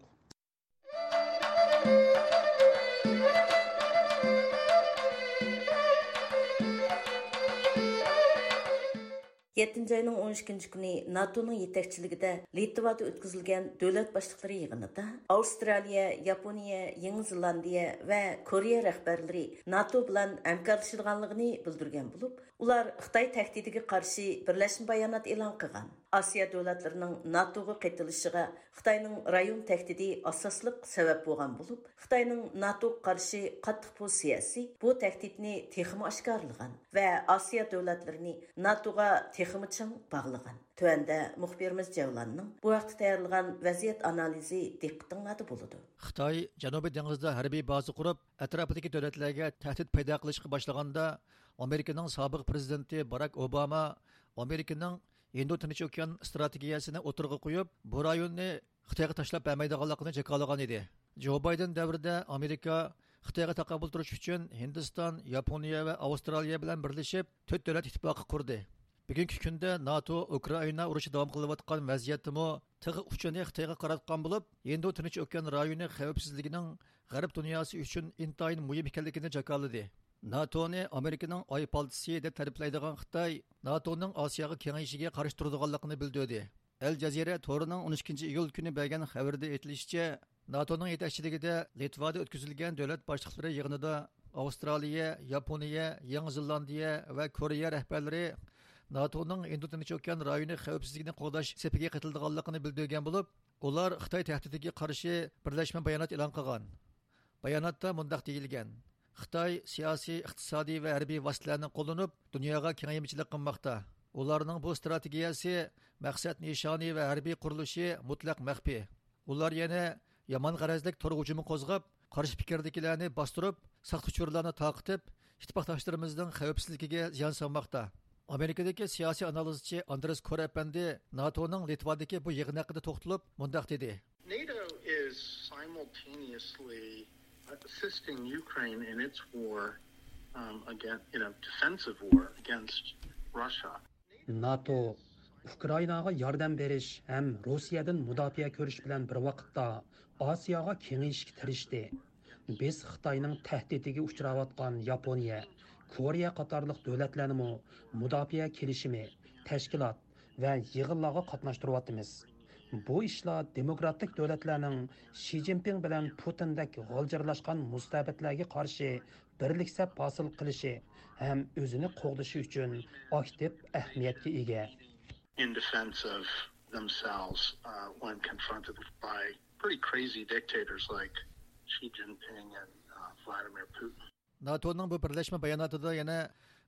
يەتتىنچى ئاينىڭ ئون ئىككىنچى كۈنى ناتونىڭ يېتەكچىلىكىدە لىتۋادا ئۆتكۈزۈلگەن دۆلەت باشلىقلىرى يىغىنىدا ئاۋسترالىيە، ياپونىيە، يېڭى زېلاندىيە ۋە كورېيە رەھبەرلىرى ناتو بىلەن ھەمكارلىشىدىغانلىقىنى بىلدۈرگەن بولۇپ، ئۇلار خىتاي تەھدىتىگە قارشى بىرلەشمە بايانات ئېلان قىلغان. ئاسىيا دۆلەتلىرىنىڭ ناتوغا قېتىلىشىغا خىتاينىڭ رايون تەھدىتى ئاساسلىق سەۋەب بولغان بولۇپ، خىتاينىڭ ناتوغا قارشى قاتتىق پوزىتسىيەسى بۇ تەھدىتنى تېخىمۇ ئاشكارىلىغان ۋە ئاسىيا دۆلەتلىرىنى ناتوغا تېخىمۇ چىڭ باغلىغان. تۆۋەندە مۇخبىرىمىز جەۋلاننىڭ بۇ ھەقتە تەييارلىغان ۋەزىيەت ئانالىزى دىققىتىڭلاردا بولىدۇ. خىتاي جەنۇبىي دېڭىزدا ھەربىي بازا قۇرۇپ، ئەتراپىدىكى دۆلەتلەرگە تەھدىت پەيدا قىلىشقا باشلىغاندا، ئامېرىكىنىڭ سابىق پرېزىدېنتى باراك ئوباما ئامېرىكىنىڭ ھىندى تىنچ ئوكيان ئىستراتېگىيەسىنى ئوتتۇرىغا قويۇپ، بۇ رايوننى خىتايغا تاشلاپ بەرمەيدىغانلىقىنى جاكارلىغان ئىدى. جو بايدېن دەۋرىدە ئامېرىكا خىتايغا تاقابىل تۇرۇش ئۈچۈن ھىندىستان، ياپونىيە ۋە ئاۋسترالىيە بىلەن بىرلىشىپ تۆت دۆلەت ئىتتىپاقى قۇردى. بۈگۈنكى كۈندە ناتو ئۇكرائىنا ئۇرۇشى داۋام قىلىۋاتقان ۋەزىيەتتىمۇ تىغ ئۇچىنى خىتايغا قاراتقان بولۇپ، ھىندى تىنچ ئوكيان رايونى خەۋپسىزلىكىنىڭ غەرب دۇنياسى ئۈچۈن ئىنتايىن مۇھىم ئىكەنلىكىنى جاكارلىدى. ناتونى ئامېرىكىنىڭ ئاي پالتىسى دەپ تەرىپلەيدىغان خىتاي ناتونىڭ ئاسىياغا كېڭىيىشىگە قارشى تۇرىدىغانلىقىنى بىلدۈردى. ئەل جەزىرە تورىنىڭ ئون ئىككىنچى ئىيۇل كۈنى بەرگەن خەۋىرىدە ئېيتىلىشىچە، ناتونىڭ يېتەكچىلىكىدە لىتۋادا ئۆتكۈزۈلگەن دۆلەت باشلىقلىرى يىغىنىدا ئاۋسترالىيە، ياپونىيە، يېڭى زېلاندىيە ۋە كورېيە رەھبەرلىرى ناتونىڭ ھىندى تىنچ ئوكيان رايونى خەۋپسىزلىكىنى قوغداش سېپىگە قېتىلىدىغانلىقىنى بىلدۈرگەن بولۇپ، ئۇلار خىتاي تەھدىتىگە قارشى بىرلەشمە بايانات ئېلان قىلغان. باياناتتا مۇنداق دېيىلگەن: خىتاي سىياسىي، ئىقتىسادىي ۋە ھەربىي ۋاسىتىلەرنى قوللىنىپ، دۇنياغا كېڭەيمىچىلىك قىلماقتا. ئۇلارنىڭ بۇ ئىستراتېگىيەسى، مەقسەت نىشانى ۋە ھەربىي قۇرۇلۇشى مۇتلەق مەخپىي. ئۇلار يەنە يامان غەرەزلىك تور ھۇجۇمى قوزغاپ، قارشى پىكىردىكىلەرنى باستۇرۇپ، ساختىچۇرلارنى تارقىتىپ، ئىتتىپاقداشلىرىمىزنىڭ خەۋپسىزلىكىگە زىيان سالماقتا. ئامېرىكىدىكى سىياسىي ئانالىزچى ئاندرېس كور ئەپەندى ناتونىڭ لىتۋادىكى بۇ يىغىن ھەققىدە توختىلىپ مۇنداق دېدى. NATO is simultaneously assisting Ukraine in its war, um, against, you know, defensive war against Russia. ناتو ئۇكرائىناغا ياردەم بېرىش ھەم روسىيەدىن مۇداپىئە كۆرۈش بىلەن بىر ۋاقىتتا ئاسىياغا كېڭىيىشكە تىرىشتى. بىز خىتاينىڭ تەھدىتىگە ئۇچراۋاتقان ياپونىيە، كورېيە قاتارلىق دۆلەتلەرنىمۇ مۇداپىئە كېلىشىمى، تەشكىلات ۋە يىغىنلارغا قاتناشتۇرۇۋاتىمىز. بۇ ئىشلار دېموكراتىك دۆلەتلەرنىڭ شى جىنپىڭ بىلەن پۇتىندەك غالجىرلاشقان مۇستەبىتلەرگە قارشى بىرلىك سەپ ھاسىل قىلىشى ھەم ئۆزىنى قوغدىشى ئۈچۈن ئاكتىپ ئەھمىيەتكە ئىگە. In defense of themselves, uh, when confronted by pretty crazy dictators like Xi Jinping and, uh, Vladimir Putin. ناتونىڭ بۇ بىرلەشمە باياناتىدا يەنە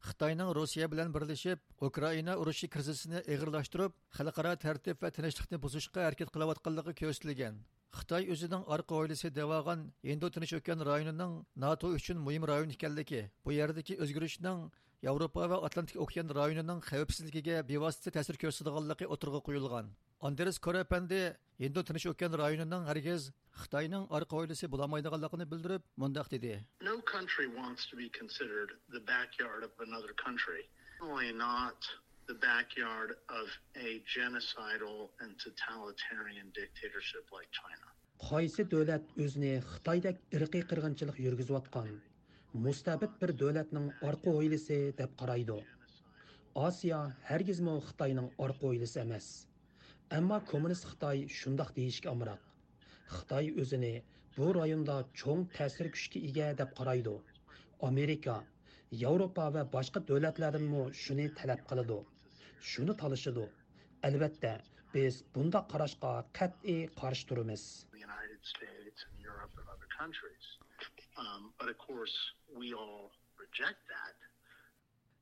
خىتاينىڭ روسىيە بىلەن بىرلىشىپ ئۇكرائىنا ئۇرۇشى كىرىزىسىنى ئېغىرلاشتۇرۇپ، خەلقئارا تەرتىپ ۋە تىنچلىقنى بۇزۇشقا ھەرىكەت قىلىۋاتقانلىقى كۆرسىتىلگەن. خىتاي ئۆزىنىڭ ئارقا ھويلىسى دەۋالغان ھىندى تىنچ ئوكيان رايونىنىڭ ناتو ئۈچۈن مۇھىم رايون ئىكەنلىكى، بۇ يەردىكى ئۆزگىرىشنىڭ ياۋروپا ۋە ئاتلانتىك ئوكيان رايونىنىڭ خەۋپسىزلىكىگە بىۋاسىتە تەسىر كۆرسىتىدىغانلىقى ئوتتۇرىغا قويۇلغان. ئاندرېس كور ئەپەندى ھىندى تىنچ ئوكيان رايونىنىڭ ھەرگىز خىتاينىڭ ئارقا ھويلىسى بولالمايدىغانلىقىنى بىلدۈرۈپ، مۇنداق دېدى. No country wants to be considered the backyard of another country. Certainly not the backyard of a genocidal and totalitarian dictatorship like China. قايسى دۆلەت ئۆزىنى خىتايدەك ئىرقىي قىرغىنچىلىق يۈرگۈزۈۋاتقان مۇستەبىت بىر دۆلەتنىڭ ئارقا ھويلىسى دەپ قارايدۇ؟ ئاسىيا ھەرگىزمۇ خىتاينىڭ ئارقا ھويلىسى ئەمەس. ئەمما كوممۇنىست خىتاي شۇنداق دېيىشكە ئامراق. خىتاي ئۆزىنى بۇ رايوندا چوڭ تەسىر كۈچكە ئىگە دەپ قارايدۇ. ئامېرىكا، ياۋروپا ۋە باشقا دۆلەتلەردىنمۇ شۇنى تەلەپ قىلىدۇ. شۇنى تالىشىدۇ. ئەلۋەتتە، بىز بۇنداق قاراشقا قەتئىي قارشى تۇرىمىز. The United States and Europe and other countries. Um, but of course, we all reject that.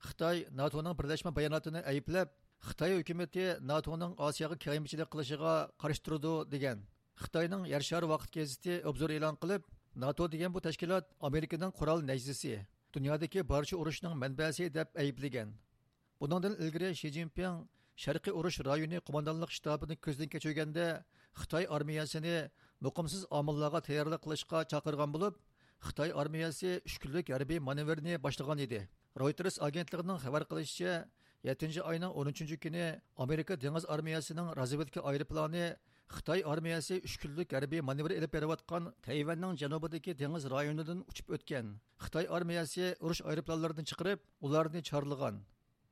خىتاي ناتونىڭ بىرلەشمە باياناتىنى ئەيىبلەپ، خىتاي ھۆكۈمىتى ناتونىڭ ئاسىياغا كېڭەيمىچىلىك قىلىشىغا قارشى تۇرىدۇ، دېگەن. خىتاينىڭ يەر شارى ۋاقىت گېزىتى ئوبزور ئېلان قىلىپ، ناتو دېگەن بۇ تەشكىلات ئامېرىكىنىڭ قورال نەيزىسى، دۇنيادىكى بارچە ئۇرۇشنىڭ مەنبەسى دەپ ئەيىبلىگەن. بۇنىڭدىن ئىلگىرى شى جىنپىڭ شەرقىي ئۇرۇش رايونى قوماندانلىق شتابىنى كۆزدىن كەچۈرگەندە، خىتاي ئارمىيەسىنى مۇقىمسىز ئامىللارغا تەييارلىق قىلىشقا چاقىرغان بولۇپ، خىتاي ئارمىيەسى ئۈچ كۈنلۈك ھەربىي مانېۋىرنى باشلىغان ئىدى. رويتېرس ئاگېنتلىقىنىڭ خەۋەر قىلىشىچە، يەتتىنچى ئاينىڭ ئون ئۈچىنچى كۈنى ئامېرىكا دېڭىز ئارمىيەسىنىڭ رازۋېدكا ئايروپىلانى خىتاي ئارمىيەسى ئۈچ كۈنلۈك ھەربىي مانېۋىر ئېلىپ بېرىۋاتقان تەيۋەننىڭ جەنۇبىدىكى دېڭىز رايونىدىن ئۇچۇپ ئۆتكەن. خىتاي ئارمىيەسى ئۇرۇش ئايروپىلانلىرىدىن چىقىرىپ، ئۇلارنى چارلىغان.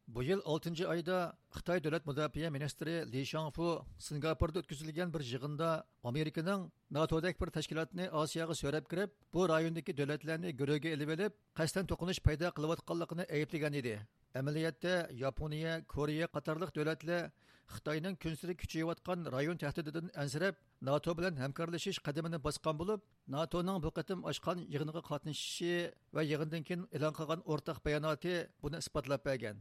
بۇ يىل ئالتىنچى ئايدا خىتاي دۆلەت مۇداپىئە مىنىستىرى لى شاڭفۇ سىنگاپوردا ئۆتكۈزۈلگەن بىر يىغىندا ئامېرىكىنىڭ ناتودەك بىر تەشكىلاتنى ئاسىياغا سۆرەپ كىرىپ، بۇ رايوندىكى دۆلەتلەرنى گۆرۈگە ئېلىۋېلىپ، قەستەن توقۇنۇش پەيدا قىلىۋاتقانلىقىنى ئەيىبلىگەن ئىدى. ئەمەلىيەتتە، ياپونىيە، كورېيە قاتارلىق دۆلەتلەر خىتاينىڭ كۈنسېرى كۈچىيىۋاتقان رايون تەھدىتىدىن ئەنسىرەپ، ناتو بىلەن ھەمكارلىشىش قەدىمىنى باسقان بولۇپ، ناتونىڭ بۇ قېتىم ئاچقان يىغىنغا قاتنىشىشى ۋە يىغىندىن كېيىن ئېلان قىلغان ئورتاق باياناتى بۇنى ئىسپاتلاپ بەرگەن.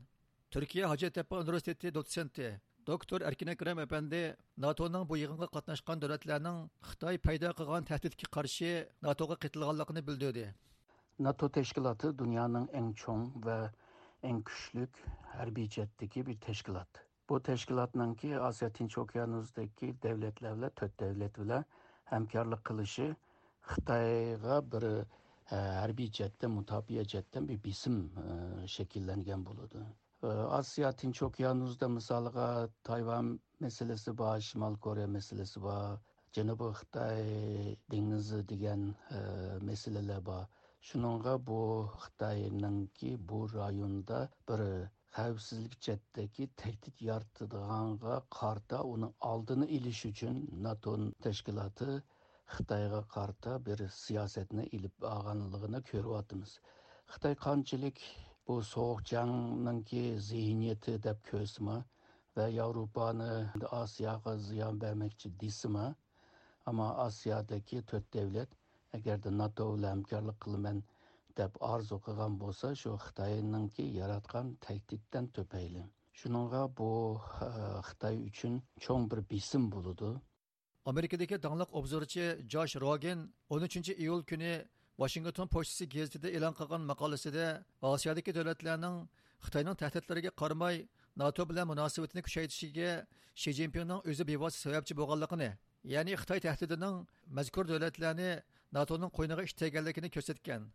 تۈركىيە ھاجەتتەپە ئۇنىۋېرسىتېتى دوتسېنتى، دوكتور ئەركىن ئەكرەم ئەپەندى ناتونىڭ بۇ يىغىنغا قاتناشقان دۆلەتلەرنىڭ خىتاي پەيدا قىلغان تەھدىتكە قارشى ناتوغا قېتىلغانلىقىنى بىلدۈردى. ناتو تەشكىلاتى دۇنيانىڭ ئەڭ چوڭ ۋە ئەڭ كۈچلۈك ھەربىي جەھەتتىكى بىر تەشكىلات. بۇ تەشكىلاتنىڭكى ئاسىيا تىنچ ئوكيانۇسىدىكى دەۋلەتلەر بىلەن، تۆت دەۋلەت بىلەن ھەمكارلىق قىلىشى خىتايغا بىر، ئە، ھەربىي جەھەتتىن، مۇداپىئە جەھەتتىن بىر بېسىم، ئە، شەكىللەنگەن بولىدۇ. ئاسىيا تىنچ ئوكيانۇسىدا مىسالىغا تايۋان مەسىلىسى بار، شىمال كورېيە مەسىلىسى بار، جەنۇبىي خىتاي دېڭىزى دېگەن، ئە، مەسىلىلەر بار. شۇنىڭغا بۇ خىتاينىڭكى بۇ رايوندا بىر خەۋپسىزلىك جەھەتتىكى تەھدىت يارىتىدىغانغا قارىتا ئۇنىڭ ئالدىنى ئېلىش ئۈچۈن ناتو تەشكىلاتى خىتايغا قارىتا بىر سىياسەتنى ئېلىپ بارغانلىقىنى كۆرۈۋاتىمىز. خىتاي قانچىلىك بۇ سوغۇق جەڭنىڭكى زېھنىيىتى دەپ كۆرسىمۇ ۋە ياۋروپانى ئاسىياغا زىيان بەرمەكچى دېسىمۇ، ئەمما ئاسىيادىكى تۆت دەۋلەت ئەگەردە ناتو بىلەن ھەمكارلىق قىلىمەن دەپ ئارزۇ قىلغان بولسا، شۇ خىتاينىڭكى ياراتقان تەھدىتتىن تۈپەيلى. شۇنىڭغا بۇ، ئە، خىتاي ئۈچۈن چوڭ بىر بېسىم بولىدۇ. ئامېرىكىدىكى داڭلىق ئوبزورچى جاش روگېن ئون ئۈچىنچى ئىيۇل كۈنى ۋاشىنگتون پوچتىسى گېزىتىدە ئېلان قىلغان ماقالىسىدە ئاسىيادىكى دۆلەتلەرنىڭ خىتاينىڭ تەھدىتلىرىگە قارىماي، ناتو بىلەن مۇناسىۋىتىنى كۈچەيتىشىگە شى جىنپىڭنىڭ ئۆزى بىۋاسىتە سەۋەبچى بولغانلىقىنى، يەنى خىتاي تەھدىتىنىڭ مەزكۇر دۆلەتلەرنى ناتونىڭ قوينىغا ئىتتەرگەنلىكىنى كۆرسەتكەن.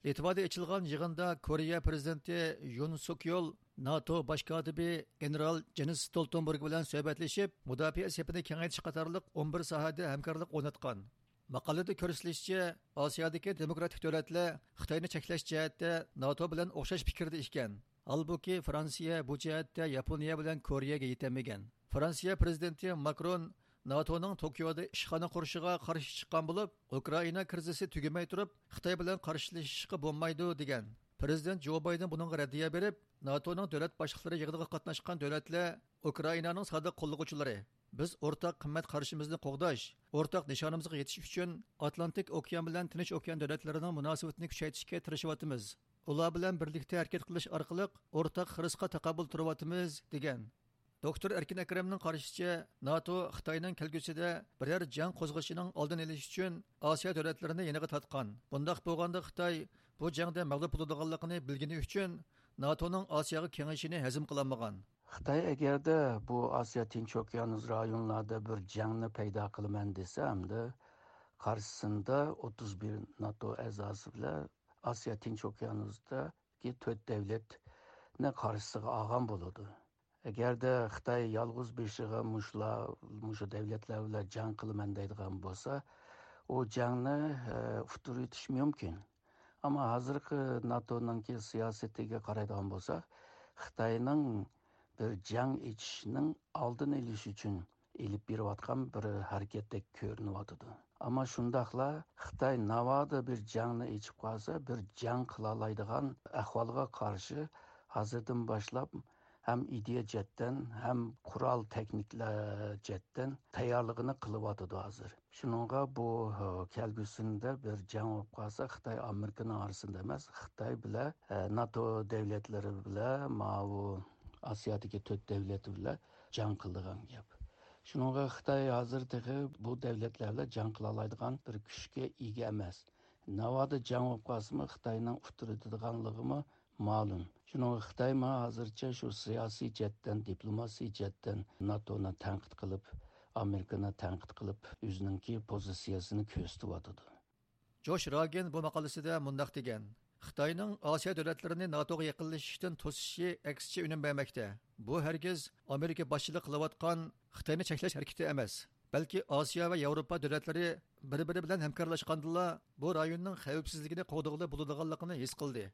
لىتۋادا ئېچىلغان يىغىندا كورېيە پىرېزىدېنتى يۇن سۇك يول ناتو باش كاتىپى گېنېرال جېنس ستولتېنبېرگ بىلەن سۆھبەتلىشىپ، مۇداپىئە سېپىنى كېڭەيتىش قاتارلىق ئون بىر ساھەدە ھەمكارلىق ئورناتقان. ماقالىدە كۆرسىتىلىشىچە، ئاسىيادىكى دېموكراتىك دۆلەتلەر خىتاينى چەكلەش جەھەتتە ناتو بىلەن ئوخشاش پىكىردە ئىكەن. ھالبۇكى، فرانسىيە بۇ جەھەتتە ياپونىيە بىلەن كورېيەگە يېتەلمىگەن. فرانسىيە پىرېزىدېنتى ماكرون ناتونىڭ توكيودا ئىشخانا قۇرۇشىغا قارشى چىققان بولۇپ، ئۇكرائىنا كىرىزىسى تۈگىمەي تۇرۇپ، خىتاي بىلەن قارشىلىشىشقا بولمايدۇ، دېگەن. پىرېزىدېنت جو بايدېن بۇنىڭغا رەددىيە بېرىپ، ناتونىڭ دۆلەت باشلىقلىرى يىغىنىغا قاتناشقان دۆلەتلەر ئۇكرائىنانىڭ سادىق قوللىغۇچىلىرى. بىز ئورتاق قىممەت قارىشىمىزنى قوغداش، ئورتاق نىشانىمىزغا يېتىش ئۈچۈن ئاتلانتىك ئوكيان بىلەن تىنچ ئوكيان دۆلەتلىرىنىڭ مۇناسىۋىتىنى كۈچەيتىشكە تىرىشىۋاتىمىز. ئۇلار بىلەن بىرلىكتە ھەرىكەت قىلىش ئارقىلىق ئورتاق خىرىسقا تاقابىل تۇرۇۋاتىمىز، دېگەن. دوكتور ئەركىن ئەكرەمنىڭ قارىشىچە، ناتو خىتاينىڭ كەلگۈسىدە بىرەر جەڭ قوزغىشىنىڭ ئالدىنى ئېلىش ئۈچۈن ئاسىيا دۆلەتلىرىنى يېنىغا تارتقان. بۇنداق بولغاندا خىتاي بۇ جەڭدە مەغلۇپ بولىدىغانلىقىنى بىلگىنى ئۈچۈن ناتونىڭ ئاسىياغا كېڭىيىشىنى ھەزىم قىلالمىغان. خىتاي ئەگەردە بۇ ئاسىيا تىنچ ئوكيانۇس رايونلاردا بىر جەڭنى پەيدا قىلىمەن دېسە، ئەمدى قارشىسىندا ئوتتۇز بىر ناتو ئەزاسى بىلەن ئاسىيا تىنچ ئوكيانۇستىكى تۆت دەۋلەتنى قارشىسىغا ئالغان بولىدۇ. ئەگەردە خىتاي يالغۇز بېشىغا مۇشۇلار، مۇشۇ دەۋلەتلەر بىلەن جەڭ قىلىمەن دەيدىغان بولسا، ئۇ جەڭنى، ئە، ئۇتتۇرىۋېتىش مۇمكىن. ئەمما ھازىرقى ناتونىڭكى سىياسىتىگە قارايدىغان بولساق، خىتاينىڭ بىر جەڭ ئېچىشنىڭ ئالدىنى ئېلىش ئۈچۈن ئېلىپ بېرىۋاتقان بىر ھەرىكەتتەك كۆرۈنۈۋاتىدۇ. ئەمما شۇنداقلا خىتاي ناۋادا بىر جەڭنى ئېچىپ قالسا، بىر جەڭ قىلالايدىغان ئەھۋالغا قارشى ھازىردىن باشلاپ ھەم ئىدىيە جەھەتتىن، ھەم قورال تېخنىكىلار جەھەتتىن تەييارلىقىنى قىلىۋاتىدۇ ھازىر. شۇنىڭغا بۇ، ھە، كەلگۈسىدە بىر جەڭ بولۇپ قالسا، خىتاي ئامېرىكىنىڭ ئارىسىدا ئەمەس، خىتاي بىلەن، ھە، ناتو دەۋلەتلىرى بىلەن ماۋۇ ئاسىيادىكى تۆت دەۋلەت بىلەن جەڭ قىلىدىغان گەپ. شۇنىڭغا خىتاي ھازىر تېخى بۇ دەۋلەتلەر بىلەن جەڭ قىلالايدىغان بىر كۈچكە ئىگە ئەمەس. ناۋادا جەڭ بولۇپ قالسىمۇ، خىتاينىڭ ئۇتتۇرىدىدىغانلىقىمۇ مەلۇم. شۇنىڭغا خىتايمۇ ھازىرچە شۇ سىياسىي جەھەتتىن، دىپلوماسىي جەھەتتىن ناتونى تەنقىد قىلىپ، ئامېرىكىنى تەنقىد قىلىپ، ئۆزىنىڭكى پوزىتسىيەسىنى كۆرسىتىۋاتىدۇ. جوش راگېن بۇ ماقالىسىدە مۇنداق دېگەن: خىتاينىڭ ئاسىيا دۆلەتلىرىنى ناتوغا يېقىنلىشىشتىن توسۇشى ئەكسىچە ئۈنۈم بەرمەكتە. بۇ ھەرگىز ئامېرىكا باشچىلىقى قىلىۋاتقان خىتاينى چەكلەش ھەرىكىتى ئەمەس، بەلكى ئاسىيا ۋە ياۋروپا دۆلەتلىرى بىر-بىرى بىلەن ھەمكارلاشقاندىلا، بۇ رايوننىڭ خەۋپسىزلىكىنى قوغدىغىلى بولىدىغانلىقىنى ھېس قىلدى.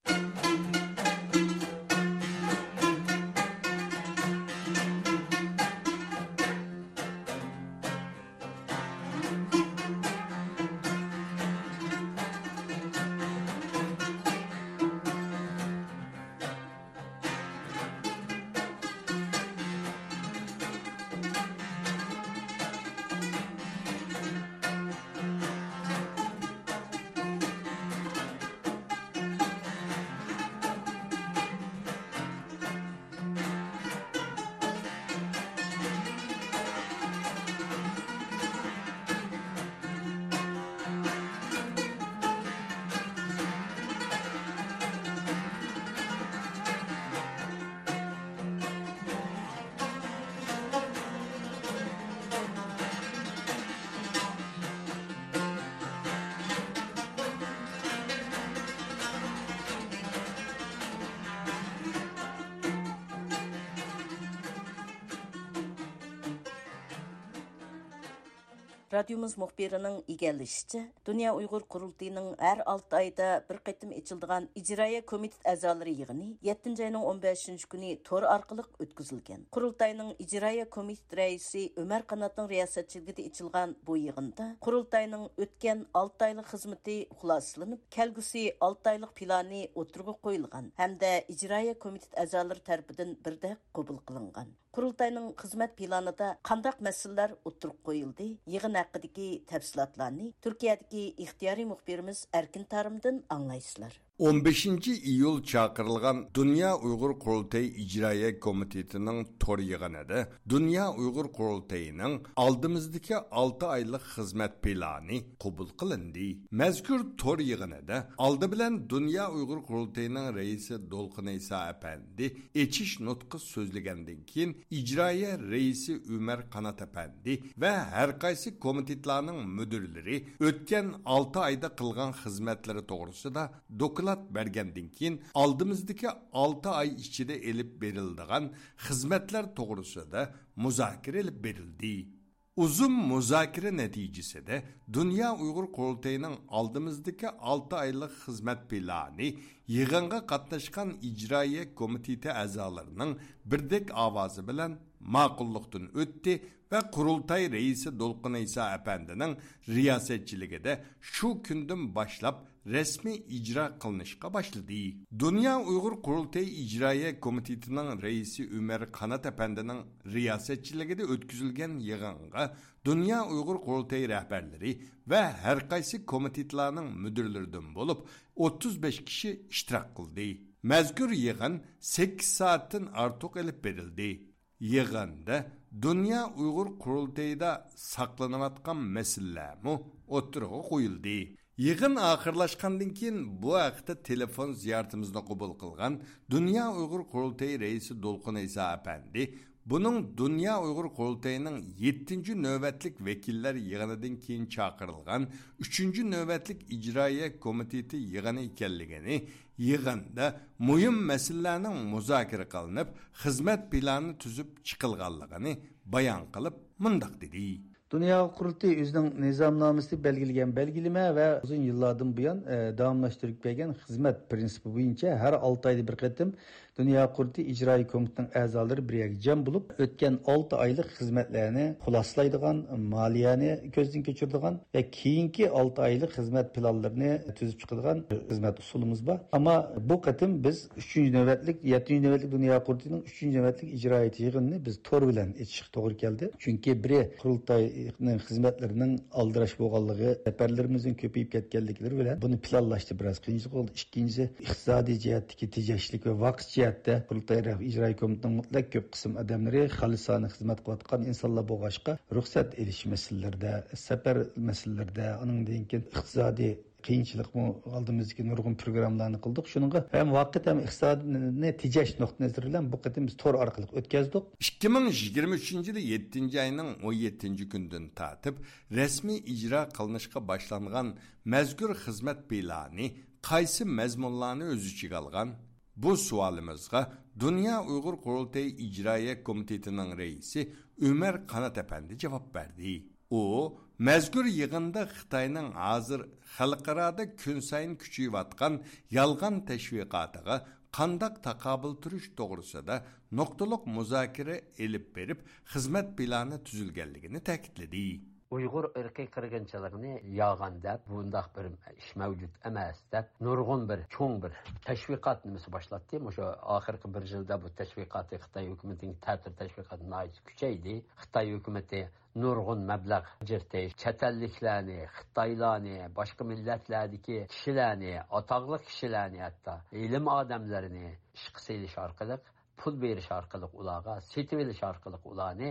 رادىيومىز مۇخبىرىنىڭ ئىگىلىشىچە، دۇنيا ئۇيغۇر قۇرۇلتىيىنىڭ ھەر ئالتە ئايدا بىر قېتىم ئېچىلىدىغان ئىجرائىيە كومىتېت ئەزالىرى يىغىنى يەتتىنچى ئاينىڭ ئون بەشىنچى كۈنى تور ئارقىلىق ئۆتكۈزۈلگەن. قۇرۇلتاينىڭ ئىجرائىيە كومىتېت رەئىسى ئۆمەر قاناتنىڭ رىياسەتچىلىكىدە ئېچىلغان بۇ يىغىندا قۇرۇلتاينىڭ ئۆتكەن ئالتە ئايلىق خىزمىتى خۇلاسىلىنىپ، كەلگۈسى ئالتە ئايلىق پىلانى ئوتتۇرىغا قويۇلغان ھەمدە ئىجرائىيە كومىتېت ئەزالىرى تەرىپىدىن بىردەك قوبۇل قىلىنغان. قۇرۇلتاينىڭ خىزمەت پىلانىدا قانداق مەسىلىلەر ئوتتۇرىغا قويۇلدى؟ يىغىن ھەققىدىكى تەپسىلاتلارنى تۈركىيەدىكى ئىختىيارىي مۇخبىرىمىز ئەركىن تارىمدىن ئاڭلايسىلەر. ئون بەشىنچى ئىيۇل چاقىرىلغان دۇنيا ئۇيغۇر قۇرۇلتىيى ئىجرائىيە كومىتېتىنىڭ تور يىغىنىدا دۇنيا ئۇيغۇر قۇرۇلتىيىنىڭ ئالدىمىزدىكى ئالتە ئايلىق خىزمەت پىلانى قوبۇل قىلىندى. مەزكۇر تور يىغىنىدا ئالدى بىلەن دۇنيا ئۇيغۇر قۇرۇلتىيىنىڭ رەئىسى دولقۇن ئەيسا ئەپەندى ئېچىش نۇتقى سۆزلىگەندىن كېيىن، ئىجرائىيە رەئىسى ئۆمەر قانات ئەپەندى ۋە ھەر قايسى كومىتېتلارنىڭ مۇدىرلىرى ئۆتكەن ئالتە ئايدا قىلغان خىزمەتلىرى توغرىسىدا دوكلات بەرگەندىن كېيىن، ئالدىمىزدىكى ئالتە ئاي ئىچىدە ئېلىپ بېرىلىدىغان خىزمەتلەر توغرىسىدا مۇزاكىرە ئېلىپ بېرىلدى. ئۇزۇن مۇزاكىرە نەتىجىسىدە دۇنيا ئۇيغۇر قۇرۇلتىيىنىڭ ئالدىمىزدىكى ئالتە ئايلىق خىزمەت پىلانى يىغىنغا قاتناشقان ئىجرائىيە كومىتېتى ئەزالىرىنىڭ بىردەك ئاۋازى بىلەن ماقۇللۇقتىن ئۆتتى ۋە قۇرۇلتاي رەئىسى دولقۇن ئەيسا ئەپەندىنىڭ رىياسەتچىلىكىدە شۇ كۈندىن باشلاپ رەسمىي ئىجرا قىلىنىشقا باشلىدى. دۇنيا ئۇيغۇر قۇرۇلتىيى ئىجرائىيە كومىتېتىنىڭ رەئىسى ئۆمەر قانات ئەپەندىنىڭ رىياسەتچىلىكىدە ئۆتكۈزۈلگەن يىغىنغا دۇنيا ئۇيغۇر قۇرۇلتىيى رەھبەرلىرى ۋە ھەر قايسى كومىتېتلارنىڭ مۇدىرلىرىدىن بولۇپ ئوتتۇز بەش كىشى ئىشتىراك قىلدى. مەزكۇر يىغىن سەككىز سائەتتىن ئارتۇق ئېلىپ بېرىلدى. يىغىندا دۇنيا ئۇيغۇر قۇرۇلتىيىدا ساقلىنىۋاتقان مەسىلىلەرمۇ ئوتتۇرىغا قويۇلدى. يىغىن ئاخىرلاشقاندىن كېيىن بۇ ھەقتە تېلېفون زىيارىتىمىزنى قوبۇل قىلغان دۇنيا ئۇيغۇر قۇرۇلتىيى رەئىسى دولقۇن ئەيسا ئەپەندى بۇنىڭ دۇنيا ئۇيغۇر قۇرۇلتىيىنىڭ يەتتىنچى نۆۋەتلىك ۋەكىللەر يىغىنىدىن كېيىن چاقىرىلغان ئۈچىنچى نۆۋەتلىك ئىجرائىيە كومىتېتى يىغىنى ئىكەنلىكىنى، يىغىندا مۇھىم مەسىلىلەرنىڭ مۇزاكىرە قىلىنىپ، خىزمەت پىلانى تۈزۈپ چىقىلغانلىقىنى بايان قىلىپ، مۇنداق دېدى. دۇنيا قۇرۇلتىيى ئۆزىنىڭ نىزامنامىسىدە بەلگىلىگەن بەلگىلىمە ۋە ئۇزۇن يىللاردىن بۇيان، ئە، داۋاملاشتۇرۇپ كەلگەن خىزمەت پىرىنسىپى بويىچە ھەر ئالتە ئايدا بىر قېتىم دۇنيا قۇرۇلتىيى ئىجرائىي كومىتېتىنىڭ ئەزالىرى بىر يەرگە جەم بولۇپ، ئۆتكەن ئالتە ئايلىق خىزمەتلەرنى خۇلاسىلايدىغان، مالىيەنى كۆزدىن كەچۈرىدىغان ۋە كېيىنكى ئالتە ئايلىق خىزمەت پىلانلىرىنى تۈزۈپ چىقىدىغان خىزمەت ئۇسۇلىمىز بار. ئەمما بۇ قېتىم بىز ئۈچىنچى نۆۋەتلىك، يەتتىنچى نۆۋەتلىك دۇنيا قۇرۇلتىيىنىڭ ئۈچىنچى نۆۋەتلىك ئىجرائىيەت يىغىنىنى بىز تور بىلەن ئېچىشقا توغرا كەلدى. چۈنكى بىرى، قۇرۇلتاينىڭ خىزمەتلىرىنىڭ ئالدىراش بولغانلىقى، سەپەرلىرىمىزنىڭ كۆپىيىپ كەتكەنلىكلىرى بىلەن بۇنى پىلانلاشتا بىراز قىيىنچىلىق بولدى. ئىككىنچىسى، ئىقتىسادىي جەھەتتىكى تېجەشلىك ۋە ۋاقىت جەھەتتە قۇرۇلتاي رەھبىرىي ئىجرائىي كومىتېتىنىڭ مۇتلەق كۆپ قىسىم ئادەملىرى خالىسانە خىزمەت قىلىۋاتقان ئىنسانلار بولغاچقا، رۇخسەت ئېلىش مەسىلىلىرىدە، سەپەر مەسىلىلىرىدە، ئانىڭدىن كېيىن ئىقتىسادىي قىيىنچىلىقمۇ، ئالدىمىزدىكى نۇرغۇن پروگراممىلارنى قىلدۇق. شۇنىڭغا ھەم ۋاقىت، ھەم ئىقتىسادنى تېجەش نۇقتىئى نەزىرى بىلەن بۇ قېتىم بىز تور ئارقىلىق ئۆتكەزدۇق. ئىككى مىڭ يىگىرمە ئۈچىنچى يىلى يەتتىنچى ئاينىڭ ئون يەتتىنچى كۈنىدىن تارتىپ رەسمىي ئىجرا قىلىنىشقا باشلانغان مەزكۇر خىزمەت پىلانى قايسى مەزمۇنلارنى ئۆز ئىچىگە ئالغان؟ بۇ سوئالىمىزغا دۇنيا ئۇيغۇر قۇرۇلتىيى ئىجرائىيە كومىتېتىنىڭ رەئىسى ئۆمەر قانات ئەپەندى جاۋاب بەردى. ئۇ مەزكۇر يىغىندا خىتاينىڭ ھازىر خەلقئارادا كۈنسايىن كۈچىيىۋاتقان يالغان تەشۋىقاتىغا قانداق تاقابىل تۇرۇش توغرىسىدا نۇقتىلىق مۇزاكىرە ئېلىپ بېرىپ، خىزمەت پىلانى تۈزۈلگەنلىكىنى تەكىتلىدى. ئۇيغۇر ئىرقىي قىرغىنچىلىقىنى يالغان دەپ، بۇنداق بىر ئىش مەۋجۇت ئەمەس دەپ، نۇرغۇن بىر چوڭ بىر تەشۋىقات نېمىسى باشلاتتى. مۇشۇ ئاخىرقى بىر يىلدا بۇ تەشۋىقاتى، خىتاي ھۆكۈمىتىنىڭ تەتۈر تەشۋىقاتى ناھايىتى كۈچەيدى. خىتاي ھۆكۈمىتى نۇرغۇن مەبلەغ ئاجرىتىش، چەت ئەللىكلەرنى، خىتايلارنى، باشقا مىللەتلەردىكى كىشىلەرنى، ئاتاقلىق كىشىلەرنى، ھەتتا ئىلىم ئادەملىرىنى ئىشقا سېلىش ئارقىلىق، پۇل بېرىش ئارقىلىق ئۇلارغا، سېتىۋېلىش ئارقىلىق ئۇلارنى،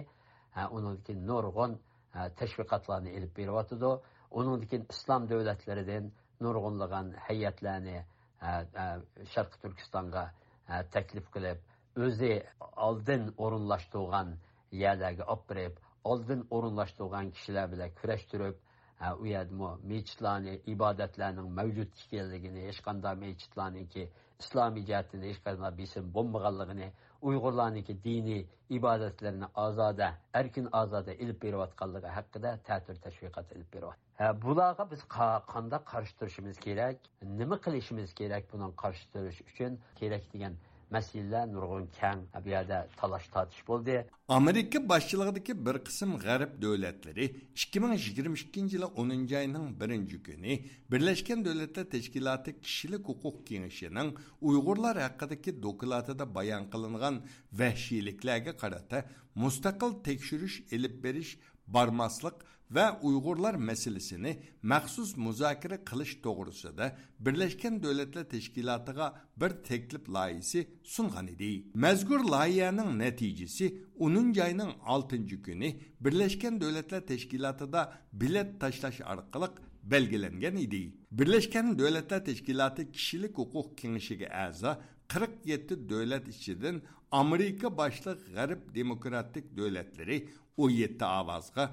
ھە، ئۇنىڭدىن كېيىن نۇرغۇن، ھە، تەشۋىقاتلارنى ئېلىپ بېرىۋاتىدۇ. ئۇنىڭدىن كېيىن ئىسلام دۆلەتلىرىدىن نۇرغۇنلىغان ھەيئەتلەرنى، ھە، ھە، شەرقىي تۈركىستانغا، ھە، تەكلىپ قىلىپ، ئۆزى ئالدىن ئورۇنلاشتۇرغان يەرلەرگە ئاپىرىپ، ئالدىن ئورۇنلاشتۇرغان كىشىلەر بىلەن كۈرەشتۈرۈپ، ھە، ئۇ يەردىمۇ مېچىتلارنى، ئىبادەتلەرنىڭ مەۋجۇت ئىكەنلىكىنى، ھېچقانداق مېچىتلارنىڭكى ئىسلامىي جەھەتتىن ھېچقانداق بېسىم بولمىغانلىقىنى، ئۇيغۇرلارنىڭكى دىنىي ئىبادەتلىرىنى ئازادە، ئەركىن ئازادە ئېلىپ بېرىۋاتقانلىقى ھەققىدە تەتۈر تەشۋىقات ئېلىپ بېرىۋاتىدۇ. ھە، بۇلارغا بىز قا-، قانداق قارشى تۇرۇشىمىز كېرەك؟ نېمە قىلىشىمىز كېرەك بۇنىڭ قارشى تۇرۇش ئۈچۈن كېرەك دېگەن مەسىلىلەر نۇرغۇن كەڭ، بۇ يەردە تالاش-تارتىش بولدى. ئامېرىكا باشچىلىقىدىكى بىر قىسىم غەرب دۆلەتلىرى ئىككى مىڭ يىگىرمە ئىككىنچى يىلى ئونىنچى ئاينىڭ بىرىنچى كۈنى بىرلەشكەن دۆلەتلەر تەشكىلاتى كىشىلىك ھوقۇق كېڭىشىنىڭ ئۇيغۇرلار ھەققىدىكى دوكلاتىدا بايان قىلىنغان ۋەھشىيلىكلەرگە قارىتا مۇستەقىل تەكشۈرۈش ئېلىپ بېرىش بارماسلىق ۋە ئۇيغۇرلار مەسىلىسىنى مەخسۇس مۇزاكىرە قىلىش توغرىسىدا بىرلەشكەن دۆلەتلەر تەشكىلاتىغا بىر تەكلىپ لايىھىسى سۇنغان ئىدى. مەزكۇر لايىھەنىڭ نەتىجىسى ئونىنچى ئاينىڭ ئالتىنچى كۈنى بىرلەشكەن دۆلەتلەر تەشكىلاتىدا بېلەت تاشلاش ئارقىلىق بەلگىلەنگەن ئىدى. بىرلەشكەن دۆلەتلەر تەشكىلاتى كىشىلىك ھوقۇق كېڭىشىگە ئەزا قىرىق يەتتە دۆلەت ئىچىدىن ئامېرىكا باشلىق غەرب دېموكراتىك دۆلەتلىرى ئون يەتتە ئاۋازغا،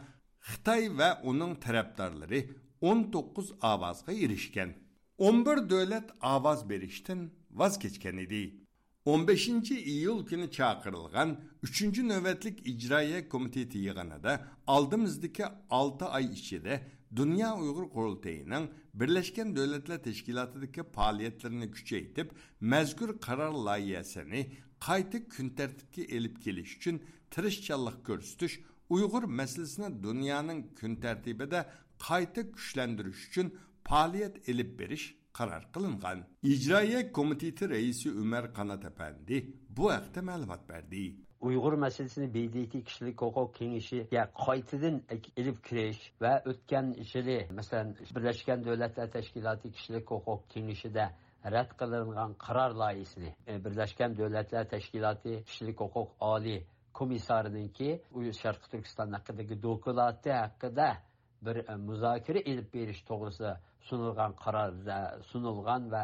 خىتاي ۋە ئۇنىڭ تەرەپدارلىرى ئون توققۇز ئاۋازغا ئېرىشكەن. ئون بىر دۆلەت ئاۋاز بېرىشتىن ۋاز كەچكەن ئىدى. ئون بەشىنچى ئىيۇل كۈنى چاقىرىلغان ئۈچىنچى نۆۋەتلىك ئىجرائىيە كومىتېتى يىغىنىدا ئالدىمىزدىكى ئالتە ئاي ئىچىدە دۇنيا ئۇيغۇر قۇرۇلتىيىنىڭ بىرلەشكەن دۆلەتلەر تەشكىلاتىدىكى پائالىيەتلىرىنى كۈچەيتىپ، مەزكۇر قارار لايىھەسىنى قايتا كۈن تەرتىپكە ئېلىپ كېلىش ئۈچۈن تىرىشچانلىق كۆرسىتىش، ئۇيغۇر مەسىلىسىنى دۇنيانىڭ كۈن تەرتىپىدە قايتا كۈچلەندۈرۈش ئۈچۈن پائالىيەت ئېلىپ بېرىش قارار قىلىنغان. ئىجرائىيە كومىتېتى رەئىسى ئۆمەر قانات ئەپەندى بۇ ھەقتە مەلۇمات بەردى. ئۇيغۇر مەسىلىسىنى ب د ت كىشىلىك ھوقۇق كېڭىشىگە قايتىدىن ئېلىپ كىرىش ۋە ئۆتكەن يىلى، مەسىلەن، بىرلەشكەن دۆلەتلەر تەشكىلاتى كىشىلىك ھوقۇق كېڭىشىدە رەت قىلىنغان قارار لايىھىسىنى، ئە، بىرلەشكەن دۆلەتلەر تەشكىلاتى كىشىلىك ھوقۇق ئالىي كومىسسارىنىڭكى ئۇ شەرقىي تۈركىستان ھەققىدىكى دوكلاتى ھەققىدە بىر، ئە، مۇزاكىرە ئېلىپ بېرىش توغرىسىدا سۇنۇلغان قارار، ئە، سۇنۇلغان ۋە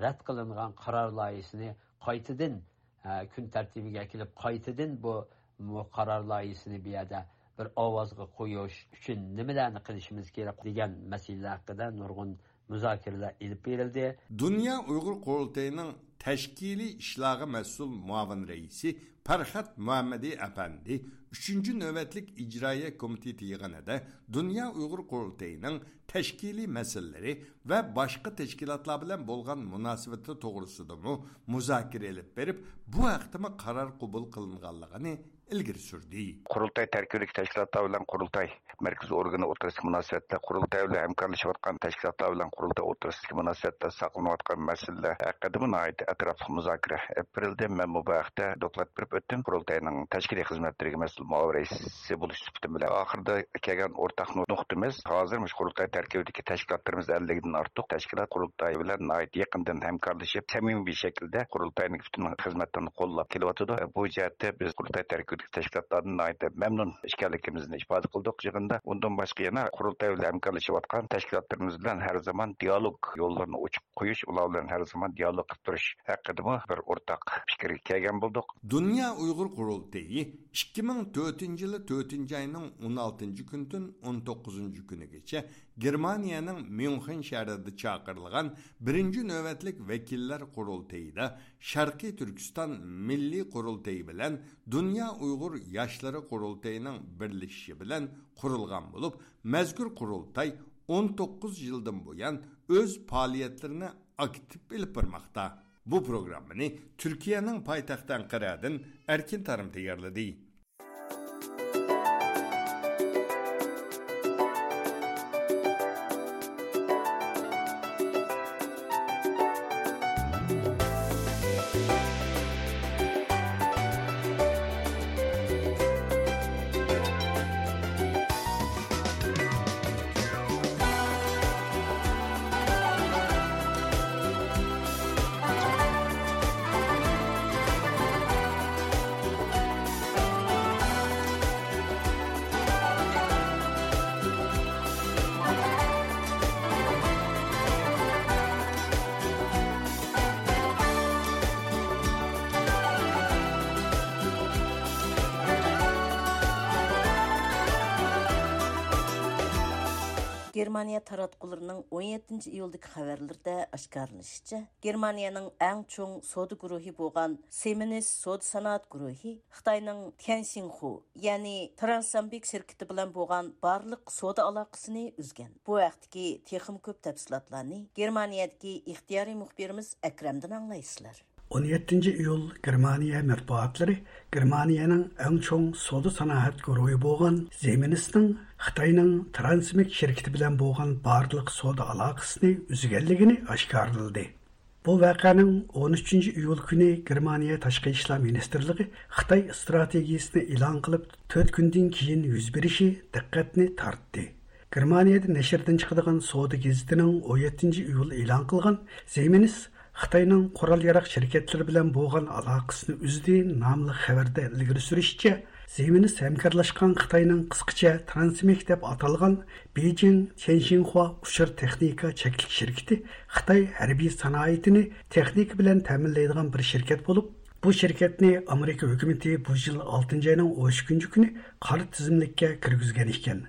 رەت قىلىنغان قارار لايىھىسىنى قايتىدىن، ئە، كۈن تەرتىبىگە ئەكېلىپ، قايتىدىن بۇ، بۇ قارار لايىھىسىنى بۇ يەردە بىر ئاۋازغا قويۇش ئۈچۈن نېمىلەرنى قىلىشىمىز كېرەك دېگەن مەسىلىلەر ھەققىدە نۇرغۇن مۇزاكىرىلەر ئېلىپ بېرىلدى. دۇنيا ئۇيغۇر قۇرۇلتىيىنىڭ تەشكىلىي ئىشلارغا مەسئۇل مۇئاۋىن رەئىسى پەرھات مۇھەممەدى ئەپەندى ئۈچىنچى نۆۋەتلىك ئىجرائىيە كومىتېتى يىغىنىدا دۇنيا ئۇيغۇر قۇرۇلتىيىنىڭ تەشكىلىي مەسىلىلىرى ۋە باشقا تەشكىلاتلار بىلەن بولغان مۇناسىۋىتى توغرىسىدىمۇ مۇزاكىرە ئېلىپ بېرىپ، بۇ ھەقتىمۇ قارار قوبۇل قىلىنغانلىقىنى ئىلگىرى سۈردى. قۇرۇلتاي تەركىبىدىكى تەشكىلاتلار بىلەن قۇرۇلتاي مەركىزىي ئورگىنى ئوتتۇرىسىدىكى مۇناسىۋەتلەر، قۇرۇلتاي بىلەن ھەمكارلىشىۋاتقان تەشكىلاتلار بىلەن قۇرۇلتاي ئوتتۇرىسىدىكى مۇناسىۋەتلەر ساقلىنىۋاتقان مەسىلىلەر ھەققىدىمۇ ناھايىتى ئەتراپلىق مۇزاكىرە ئېلىپ بېرىلدى. مەنمۇ بۇ ھەقتە دوكلات بېرىپ ئۆتتۈم. قۇرۇلتاينىڭ تەشكىلىي خىزمەتلىرىگە مەسئۇل مۇئاۋىن رەئىسى بولۇش سۈپىتىم بىلەن ئاخىرىدا كەلگەن ئورتاق نۇ-، نۇقتىمىز، ھازىر مۇشۇ قۇرۇلتاي تەركىبىدىكى تەشكىلاتلىرىمىز ئەللىكتىن ئارتۇق تەشكىلات قۇرۇلتاي بىلەن ناھايىتى يېقىندىن ھەمكارلىشىپ، سەمىمىي شەكىلدە قۇرۇلتاينىڭ پۈتۈن خىزمەتلىرىنى قوللاپ كېلىۋاتىدۇ. بۇ جەھەتتە بىز قۇرۇلتاي تەركىبىدىكى تەشكىلاتلاردىن ناھايىتى مەمنۇن ئىكەنلىكىمىزنى ئىپادە قىلدۇق يىغىندا. ئۇندىن باشقا يەنە قۇرۇلتاي بىلەن ھەمكارلىشىۋاتقان تەشكىلاتلىرىمىز بىلەن ھەر زامان دىئالوگ يوللىرىنى ئوچۇق قويۇش، ئۇلار بىلەن ھەر زامان دىئالوگ قىلىپ تۇرۇش ھەققىدىمۇ بىر ئورتاق پىكىرگە كەلگەن بولدۇق. دۇنيا ئۇيغۇر قۇرۇلتىيى ئىككى مىڭ تۆتىنچى يىلى تۆتىنچى ئاينىڭ ئون ئالتىنچى كۈنىدىن ئون توققۇزىنچى كۈنىگىچە گېرمانىيەنىڭ ميۇنخېن شەھىرىدە چاقىرىلغان بىرىنچى نۆۋەتلىك ۋەكىللەر قۇرۇلتىيىدا شەرقىي تۈركىستان مىللىي قۇرۇلتىيى بىلەن دۇنيا ئۇيغۇر ياشلىرى قۇرۇلتىيىنىڭ بىرلىشىشى بىلەن قۇرۇلغان بولۇپ، مەزكۇر قۇرۇلتاي ئون توققۇز يىلدىن بۇيان ئۆز پائالىيەتلىرىنى ئاكتىپ ئېلىپ بارماقتا. بۇ پروگراممىنى تۈركىيەنىڭ پايتەختى ئەنقەرەدىن ئەركىن تارىم تەييارلىدى. گېرمانىيە تاراتقۇلىرىنىڭ ئون يەتتىنچى ئىيۇلدىكى خەۋەرلىرىدە ئاشكارىلىنىشىچە، گېرمانىيەنىڭ ئەڭ چوڭ سودا گۇرۇھى بولغان سىمېنس سودا سانائەت گۇرۇھى خىتاينىڭ تيەنشىنخۇ، يەنى ترانسامبىك شىركىتى بىلەن بولغان بارلىق سودا ئالاقىسىنى ئۈزگەن. بۇ ھەقتىكى تېخىمۇ كۆپ تەپسىلاتلارنى گېرمانىيەدىكى ئىختىيارىي مۇخبىرىمىز ئەكرەمدىن ئاڭلايسىلەر. ئون يەتتىنچى ئىيۇل گېرمانىيە مەتبۇئاتلىرى گېرمانىيەنىڭ ئەڭ چوڭ سودا سانائەت گۇرۇھى بولغان زېمىنسنىڭ خىتاينىڭ ترانسمېك شىركىتى بىلەن بولغان بارلىق سودا ئالاقىسىنى ئۈزگەنلىكىنى ئاشكارىلىدى. بۇ ۋەقەنىڭ ئون ئۈچىنچى ئىيۇل كۈنى گېرمانىيە تاشقى ئىشلار مىنىستىرلىقى خىتاي ئىستراتېگىيىسىنى ئېلان قىلىپ، تۆت كۈندىن كېيىن يۈز بېرىشى دىققەتنى تارتتى. گېرمانىيەدە نەشردىن چىقىدىغان سودا گېزىتىنىڭ ئون يەتتىنچى ئىيۇل ئېلان قىلغان زېمىنس خىتاينىڭ قورال-ياراغ شىركەتلىرى بىلەن بولغان ئالاقىسىنى ئۈزدى ناملىق خەۋەردە ئىلگىرى سۈرۈشىچە، زېمىنس ھەمكارلاشقان خىتاينىڭ قىسقىچە ترانسمېك دەپ ئاتالغان بېيجىڭ تيەنشىنخۇا ئۇچۇر تېخنىكا چەكلىك شىركىتى خىتاي ھەربىي سانائىتىنى تېخنىكا بىلەن تەمىنلەيدىغان بىر شىركەت بولۇپ، بۇ شىركەتنى ئامېرىكا ھۆكۈمىتى بۇ يىل ئالتىنچى ئاينىڭ ئون ئىككىنچى كۈنى قارا تىزىملىككە كىرگۈزگەن ئىكەن.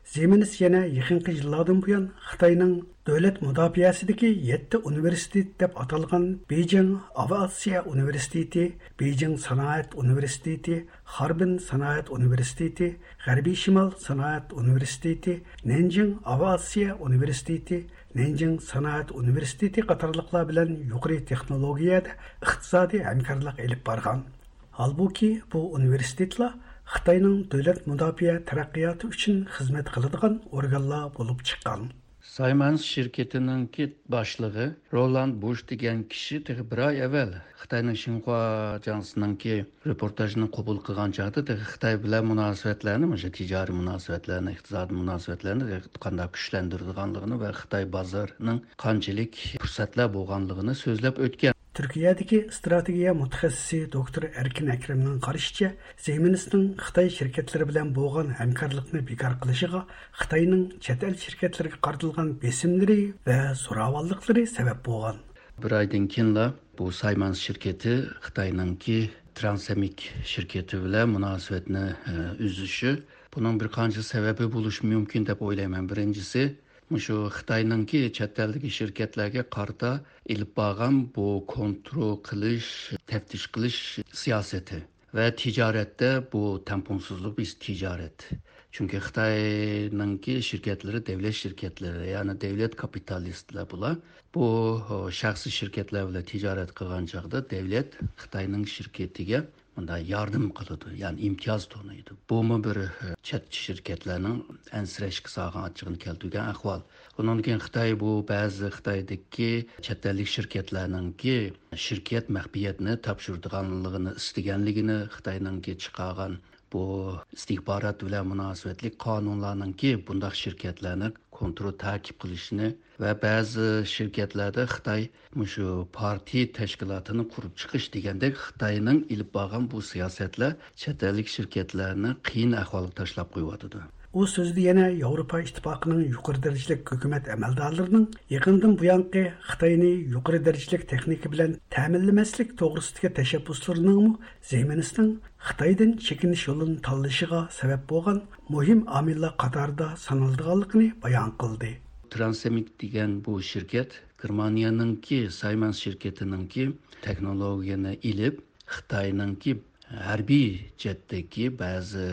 زېمىنس يەنە يېقىنقى يىللاردىن بۇيان خىتاينىڭ دۆلەت مۇداپىئەسىدىكى يەتتە ئۇنىۋېرسىتېت دەپ ئاتالغان بېيجىڭ ئاۋىئاتسىيە ئۇنىۋېرسىتېتى، بېيجىڭ سانائەت ئۇنىۋېرسىتېتى، خاربىن سانائەت ئۇنىۋېرسىتېتى، غەربىي شىمال سانائەت ئۇنىۋېرسىتېتى، نەنجىڭ ئاۋىئاتسىيە ئۇنىۋېرسىتېتى، نەنجىڭ سانائەت ئۇنىۋېرسىتېتى قاتارلىقلار بىلەن يۇقىرى تېخنولوگىيەدە ئىقتىسادىي ھەمكارلىق ئېلىپ بارغان. ھالبۇكى، بۇ ئۇنىۋېرسىتېتلار خىتاينىڭ دۆلەت مۇداپىئە تەرەققىياتى ئۈچۈن خىزمەت قىلىدىغان ئورگانلار بولۇپ چىققان. سايمانس شىركىتىنىڭكى باشلىقى رولاند بۇش دېگەن كىشى تېخى بىر ئاي ئەۋۋەل خىتاينىڭ شىنخۇا ئاژانسىنىڭكى رېپورتاژىنى قوبۇل قىلغان چاغدا تېخى خىتاي بىلەن مۇناسىۋەتلەرنى، مۇشۇ تىجارىي مۇناسىۋەتلەرنى، ئىقتىسادىي مۇناسىۋەتلەرنى تېخى قانداق كۈچلەندۈرىدىغانلىقىنى ۋە خىتاي بازىرىنىڭ قانچىلىك پۇرسەتلەر بولغانلىقىنى سۆزلەپ ئۆتكەن. تۈركىيەدىكى ئىستراتېگىيە مۇتەخەسسىسى دوكتور ئەركىن ئەكرەمنىڭ قارىشىچە، زىمىنىسنىڭ خىتاي شىركەتلىرى بىلەن بولغان ھەمكارلىقنى بىكار قىلىشىغا خىتاينىڭ چەت ئەل شىركەتلىرىگە قارىتىلغان بېسىملىرى ۋە زوراۋانلىقلىرى سەۋەب بولغان. بىر ئايدىن كېيىنلا بۇ سايمانس شىركىتى خىتاينىڭكى ترانسېمىك شىركىتى بىلەن مۇناسىۋەتنى، ئە، ئۈزۈشى، بۇنىڭ بىر قانچە سەۋەبى بولۇشى مۇمكىن دەپ ئويلايمەن. بىرىنچىسى، مۇشۇ خىتاينىڭكى چەت ئەلدىكى شىركەتلەرگە قارىتا ئېلىپ بارغان بۇ كونترول قىلىش، تەپتىش قىلىش سىياسىتى ۋە تىجارەتتە بۇ تەڭپۇڭسىزلىق بىز تىجارەت. چۈنكى خىتاينىڭكى شىركەتلىرى دەۋلەت شىركەتلىرى، يەنى دەۋلەت كاپىتالىستلار بۇلار. بۇ، ئو، شەخسىي شىركەتلەر بىلەن تىجارەت قىلغان چاغدا دەۋلەت خىتاينىڭ شىركىتىگە مۇنداق ياردەم قىلىدۇ، يەنى ئىمتىياز تونۇيدۇ. بۇمۇ بىر، ئە، چەت شىركەتلەرنىڭ ئەنسىرەشكە سالغان ئاچچىقىنى كەلتۈرگەن ئەھۋال. ئۇنىڭدىن كېيىن خىتاي بۇ بەزى خىتايدىكى چەت ئەللىك شىركەتلەرنىڭكى شىركەت مەخپىيەتنى تاپشۇرىدىغانلىقىنى ئىستىگەنلىكىنى، خىتاينىڭكى چىقارغان بۇ ئىستىخبارات بىلەن مۇناسىۋەتلىك قانۇنلارنىڭكى بۇنداق شىركەتلەرنى كونترول تەكىپ قىلىشىنى ۋە بەزى شىركەتلەردە خىتاي مۇشۇ پارتىيە تەشكىلاتىنى قۇرۇپ چىقىش دېگەندەك خىتاينىڭ ئېلىپ بارغان بۇ سىياسەتلەر چەت ئەللىك شىركەتلەرنى قىيىن ئەھۋالغا تاشلاپ قويۇۋاتىدۇ. ئۇ سۆزىدە يەنە ياۋروپا ئىتتىپاقىنىڭ يۇقىرى دەرىجىلىك ھۆكۈمەت ئەمەلدارلىرىنىڭ يېقىندىن بۇيانقى خىتاينى يۇقىرى دەرىجىلىك تېخنىكا بىلەن تەمىنلىمەسلىك توغرىسىدىكى تەشەببۇسلىرىنىڭمۇ زىمىنىسنىڭ خىتايدىن چېكىنىش يولىنى تاللىشىغا سەۋەب بولغان مۇھىم ئامىللار قاتارىدا سانىلىدىغانلىقىنى بايان قىلدى. ترانسېمىك دېگەن بۇ شىركەت گېرمانىيەنىڭكى سايمانس شىركىتىنىڭكى تېخنولوگىيەنى ئېلىپ، خىتاينىڭكى ھەربىي جەھەتتىكى بەزى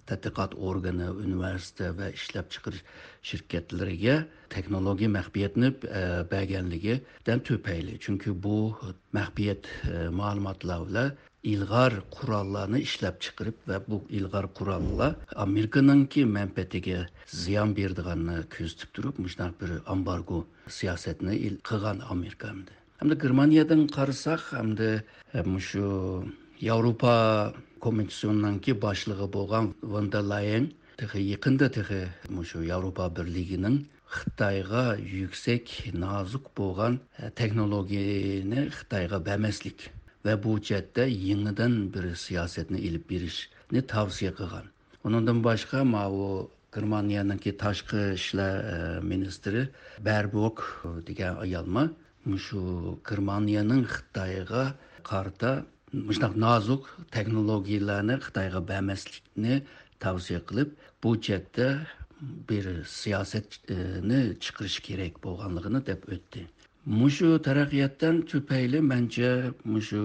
تەتقىقات ئورگىنى، ئۇنىۋېرسىتېت ۋە ئىشلەپچىقىرىش شىركەتلىرىگە تېخنولوگىيە مەخپىيەتنى، ئە، بەرگەنلىكىدىن تۈپەيلى. چۈنكى بۇ مەخپىيەت، ئە، مەلۇماتلار بىلەن ئىلغار قوراللارنى ئىشلەپچىقىرىپ ۋە بۇ ئىلغار قوراللار ئامېرىكىنىڭكى مەنپەئەتىگە زىيان بېرىدىغانلىقىنى كۆزىتىپ تۇرۇپ، مۇشۇنداق بىر ئامبارگو سىياسەتنى ئىل-، قىلغان ئامېرىكا ئەمدى. ئەمدى گېرمانىيەدىن قارىساق، ئەمدى، ئە، مۇشۇ ياۋروپا كومىسسىيونىڭكى باشلىقى بولغان ۋان دېر لايەن تېخى يېقىندا تېخى مۇشۇ ياۋروپا بىرلىكىنىڭ خىتايغا يۈكسەك نازۇك بولغان، ئە، تېخنولوگىيەنى خىتايغا بەرمەسلىك ۋە بۇ جەھەتتە يېڭىدىن بىر سىياسەتنى ئېلىپ بېرىشنى تەۋسىيە قىلغان. ئۇنىڭدىن باشقا، ماۋۇ گېرمانىيەنىڭكى تاشقى ئىشلار، ئە، مىنىستىرى بېربوك دېگەن ئايالمۇ مۇشۇ گېرمانىيەنىڭ خىتايغا قارىتا مۇشۇنداق نازۇك تېخنولوگىيەلەرنى خىتايغا بەرمەسلىكنى تەۋسىيە قىلىپ، بۇ جەھەتتە بىر سىياسەتنى چىقىرىش كېرەك بولغانلىقىنى دەپ ئۆتتى. مۇشۇ تەرەققىياتتىن تۈپەيلى، مەنچە، مۇشۇ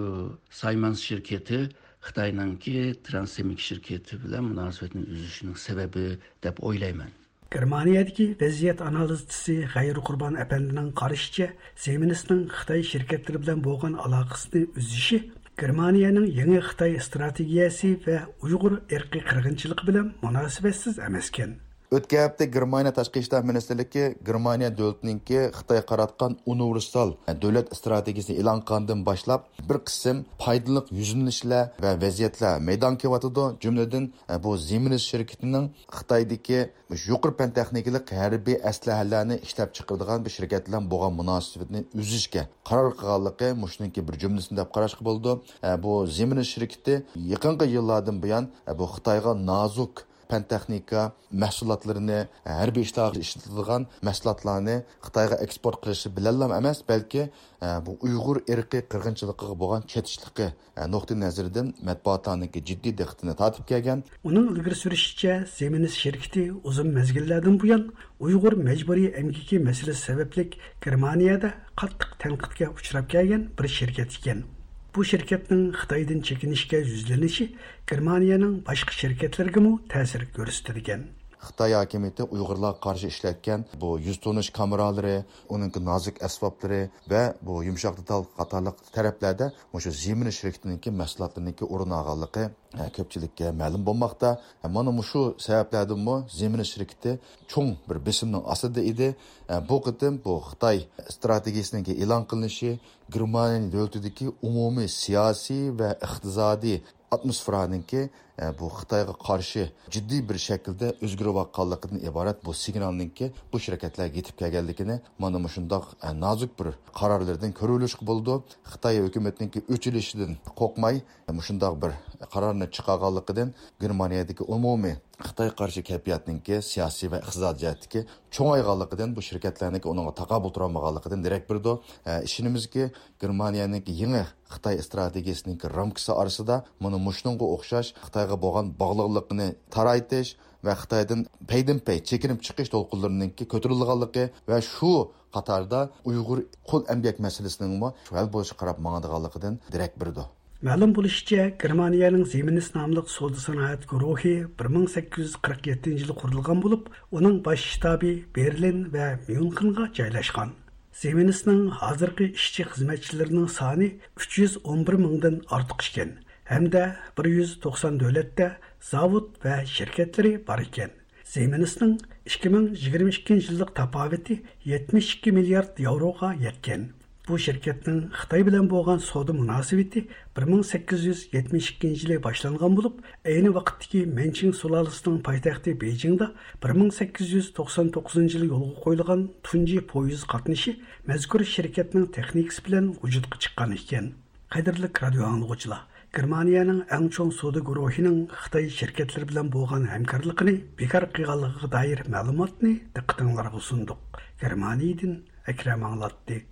سايمانس شىركىتى خىتاينىڭكى ترانسېمىك شىركىتى بىلەن مۇناسىۋەتنى ئۈزۈشىنىڭ سەۋەبى دەپ ئويلايمەن. گېرمانىيەدىكى ۋەزىيەت ئانالىزچىسى غەيرى قۇربان ئەپەندىنىڭ قارىشىچە، زىمىنىسنىڭ خىتاي شىركەتلىرى بىلەن بولغان ئالاقىسىنى ئۈزۈشى گېرمانىيەنىڭ يېڭى خىتاي ئىستراتېگىيەسى ۋە ئۇيغۇر ئىرقىي قىرغىنچىلىقى بىلەن مۇناسىۋەتسىز ئەمەسكەن. ئۆتكەن ھەپتە گېرمانىيە تاشقى ئىشلار مىنىستىرلىكى گېرمانىيە دۆلىتىنىڭكى خىتايغا قاراتقان ئۇنىۋېرسال دۆلەت ئىستراتېگىيىسىنى ئېلان قىلغاندىن باشلاپ، بىر قىسىم پايدىلىق يۈزلىنىشلەر ۋە ۋەزىيەتلەر مەيدانغا كېلىۋاتىدۇ. جۈملىدىن، بۇ زىمىنىس شىركىتىنىڭ خىتايدىكى مۇشۇ يۇقىرى پەن تېخنىكىلىق ھەربىي ئەسلىھەلەرنى ئىشلەپچىقىرىدىغان بىر شىركەت بىلەن بولغان مۇناسىۋىتىنى ئۈزۈشكە قارار قىلغانلىقى مۇشۇنىڭكى بىر جۈملىسى دەپ قاراشقا بولىدۇ. ئە، بۇ زىمىنىس شىركىتى يېقىنقى يىللاردىن بۇيان، ئە، بۇ خىتايغا نازۇك پەن تېخنىكا مەھسۇلاتلىرىنى، ھەربىي ئىشلارغا ئىشلىتىدىغان مەھسۇلاتلارنى خىتايغا ئېكسپورت قىلىشى بىلەنلا ئەمەس، بەلكى، ئە، بۇ ئۇيغۇر ئىرقىي قىرغىنچىلىقىغا بولغان چېتىشلىقى، ئە، نۇقتىئى نەزىرىدىن مەتبۇئاتلارنىڭكى جىددىي دىققىتىنى تارتىپ كەلگەن. ئۇنىڭ ئىلگىرى سۈرۈشىچە، زىمىنىس شىركىتى ئۇزۇن مەزگىللەردىن بۇيان ئۇيغۇر مەجبۇرىي ئەمگىكى مەسىلىسى سەۋەبلىك گېرمانىيەدە قاتتىق تەنقىدكە ئۇچراپ كەلگەن بىر شىركەت ئىكەن. بۇ شىركەتنىڭ خىتايدىن چېكىنىشكە يۈزلىنىشى گېرمانىيەنىڭ باشقا شىركەتلىرىگىمۇ تەسىر كۆرسىتىدىكەن. خىتاي ھاكىمىيىتى ئۇيغۇرلارغا قارشى ئىشلەتكەن بۇ يۈز تونۇش كامېرالىرى، ئۇنىڭكى نازۇك ئەسۋابلىرى ۋە بۇ يۇمشاق دېتال قاتارلىق تەرەپلەردە مۇشۇ زىمىنىس شىركىتىنىڭكى مەھسۇلاتلىرىنىڭكى ئورۇن ئالغانلىقى، ئە، كۆپچىلىككە مەلۇم بولماقتا. ئە، مانا مۇشۇ سەۋەبلەردىنمۇ زىمىنىس شىركىتى چوڭ بىر بېسىمنىڭ ئاستىدا ئىدى. ئە، بۇ قېتىم بۇ خىتاي ئىستراتېگىيىسىنىڭكى ئېلان قىلىنىشى گېرمانىيە دۆلىتىدىكى ئومۇمىي سىياسىي ۋە ئىقتىسادىي ئاتموسفېرانىڭكى ئە، بۇ خىتايغا قارشى جىددىي بىر شەكىلدە ئۆزگىرىۋاتقانلىقىدىن ئىبارەت بۇ سىگنالنىڭكى بۇ شىركەتلەرگە يېتىپ كەلگەنلىكىنى مانا مۇشۇنداق، ئە، نازۇك بىر قارارلىرىدىن كۆرۈۋېلىشقا بولىدۇ. خىتاي ھۆكۈمىتىنىڭكى ئۆچ ئېلىشىدىن قورقماي، مۇشۇنداق بىر قارارنى چىقارغانلىقىدىن گېرمانىيەدىكى ئومۇمىي خىتاي قارشى كەيپىياتنىڭكى سىياسىي ۋە ئىقتىسادىي جەھەتتىكى چوڭايغانلىقىدىن، بۇ شىركەتلەرنىڭكى ئۇنىڭغا تاقابىل تۇرالمىغانلىقىدىن دېرەك بېرىدۇ. ئە، ئىشىنىمىزكى، گېرمانىيەنىڭكى يېڭى خىتاي ئىستراتېگىيىسىنىڭكى رامكىسى ئارىسىدا مانا مۇشۇنىڭغا ئوخشاش خىتايغا بولغان باغلىقلىقىنى تارايتىش ۋە خىتايدىن پەيدىنپەي چېكىنىپ چىقىش دولقۇنلىرىنىڭكى كۆتۈرۈلىدىغانلىقى ۋە شۇ قاتاردا ئۇيغۇر قۇل ئەمگەك مەسىلىسىنىڭمۇ ھەل بولۇشىغا قاراپ ماڭىدىغانلىقىدىن دېرەك بېرىدۇ. مەلۇم بولۇشىچە، گېرمانىيەنىڭ زىمىنىس ناملىق سودا سانائەت گۇرۇھى بىر مىڭ سەككىز يۈز قىرىق يەتتىنچى يىلى قۇرۇلغان بولۇپ، ئۇنىڭ باش شتابى بېرلىن ۋە ميۇنخېنغا جايلاشقان. زىمىنىسنىڭ ھازىرقى ئىشچى خىزمەتچىلىرىنىڭ سانى ئۈچ يۈز ئون بىر مىڭدىن ئارتۇق ئىكەن ھەمدە بىر يۈز توقسان دۆلەتتە زاۋۇت ۋە شىركەتلىرى بار ئىكەن. زىمىنىسنىڭ ئىككى مىڭ يىگىرمە ئىككىنچى يىللىق تاپاۋىتى يەتمىش ئىككى مىليارد ياۋروغا يەتكەن. بۇ شىركەتنىڭ خىتاي بىلەن بولغان سودا مۇناسىۋىتى بىر مىڭ سەككىز يۈز يەتمىش ئىككىنچى يىلى باشلانغان بولۇپ، ئەينى ۋاقىتتىكى مەنچىڭ سۇلالىسىنىڭ پايتەختى بېيجىڭدا بىر مىڭ سەككىز يۈز توقسان توققۇزىنچى يىلى يولغا قويۇلغان تۇنجى پويىز قاتنىشى مەزكۇر شىركەتنىڭ تېخنىكىسى بىلەن ۋۇجۇدقا چىققان ئىكەن. قەدىرلىك رادىئو ئاڭلىغۇچىلار، گېرمانىيەنىڭ ئەڭ چوڭ سودا گۇرۇھىنىڭ خىتاي شىركەتلىرى بىلەن بولغان ھەمكارلىقىنى بىكار قىلغانلىقىغا دائىر مەلۇماتنى دىققىتىڭلارغا سۇندۇق. گېرمانىيەدىن ئەكرەم ئاڭلاتتى.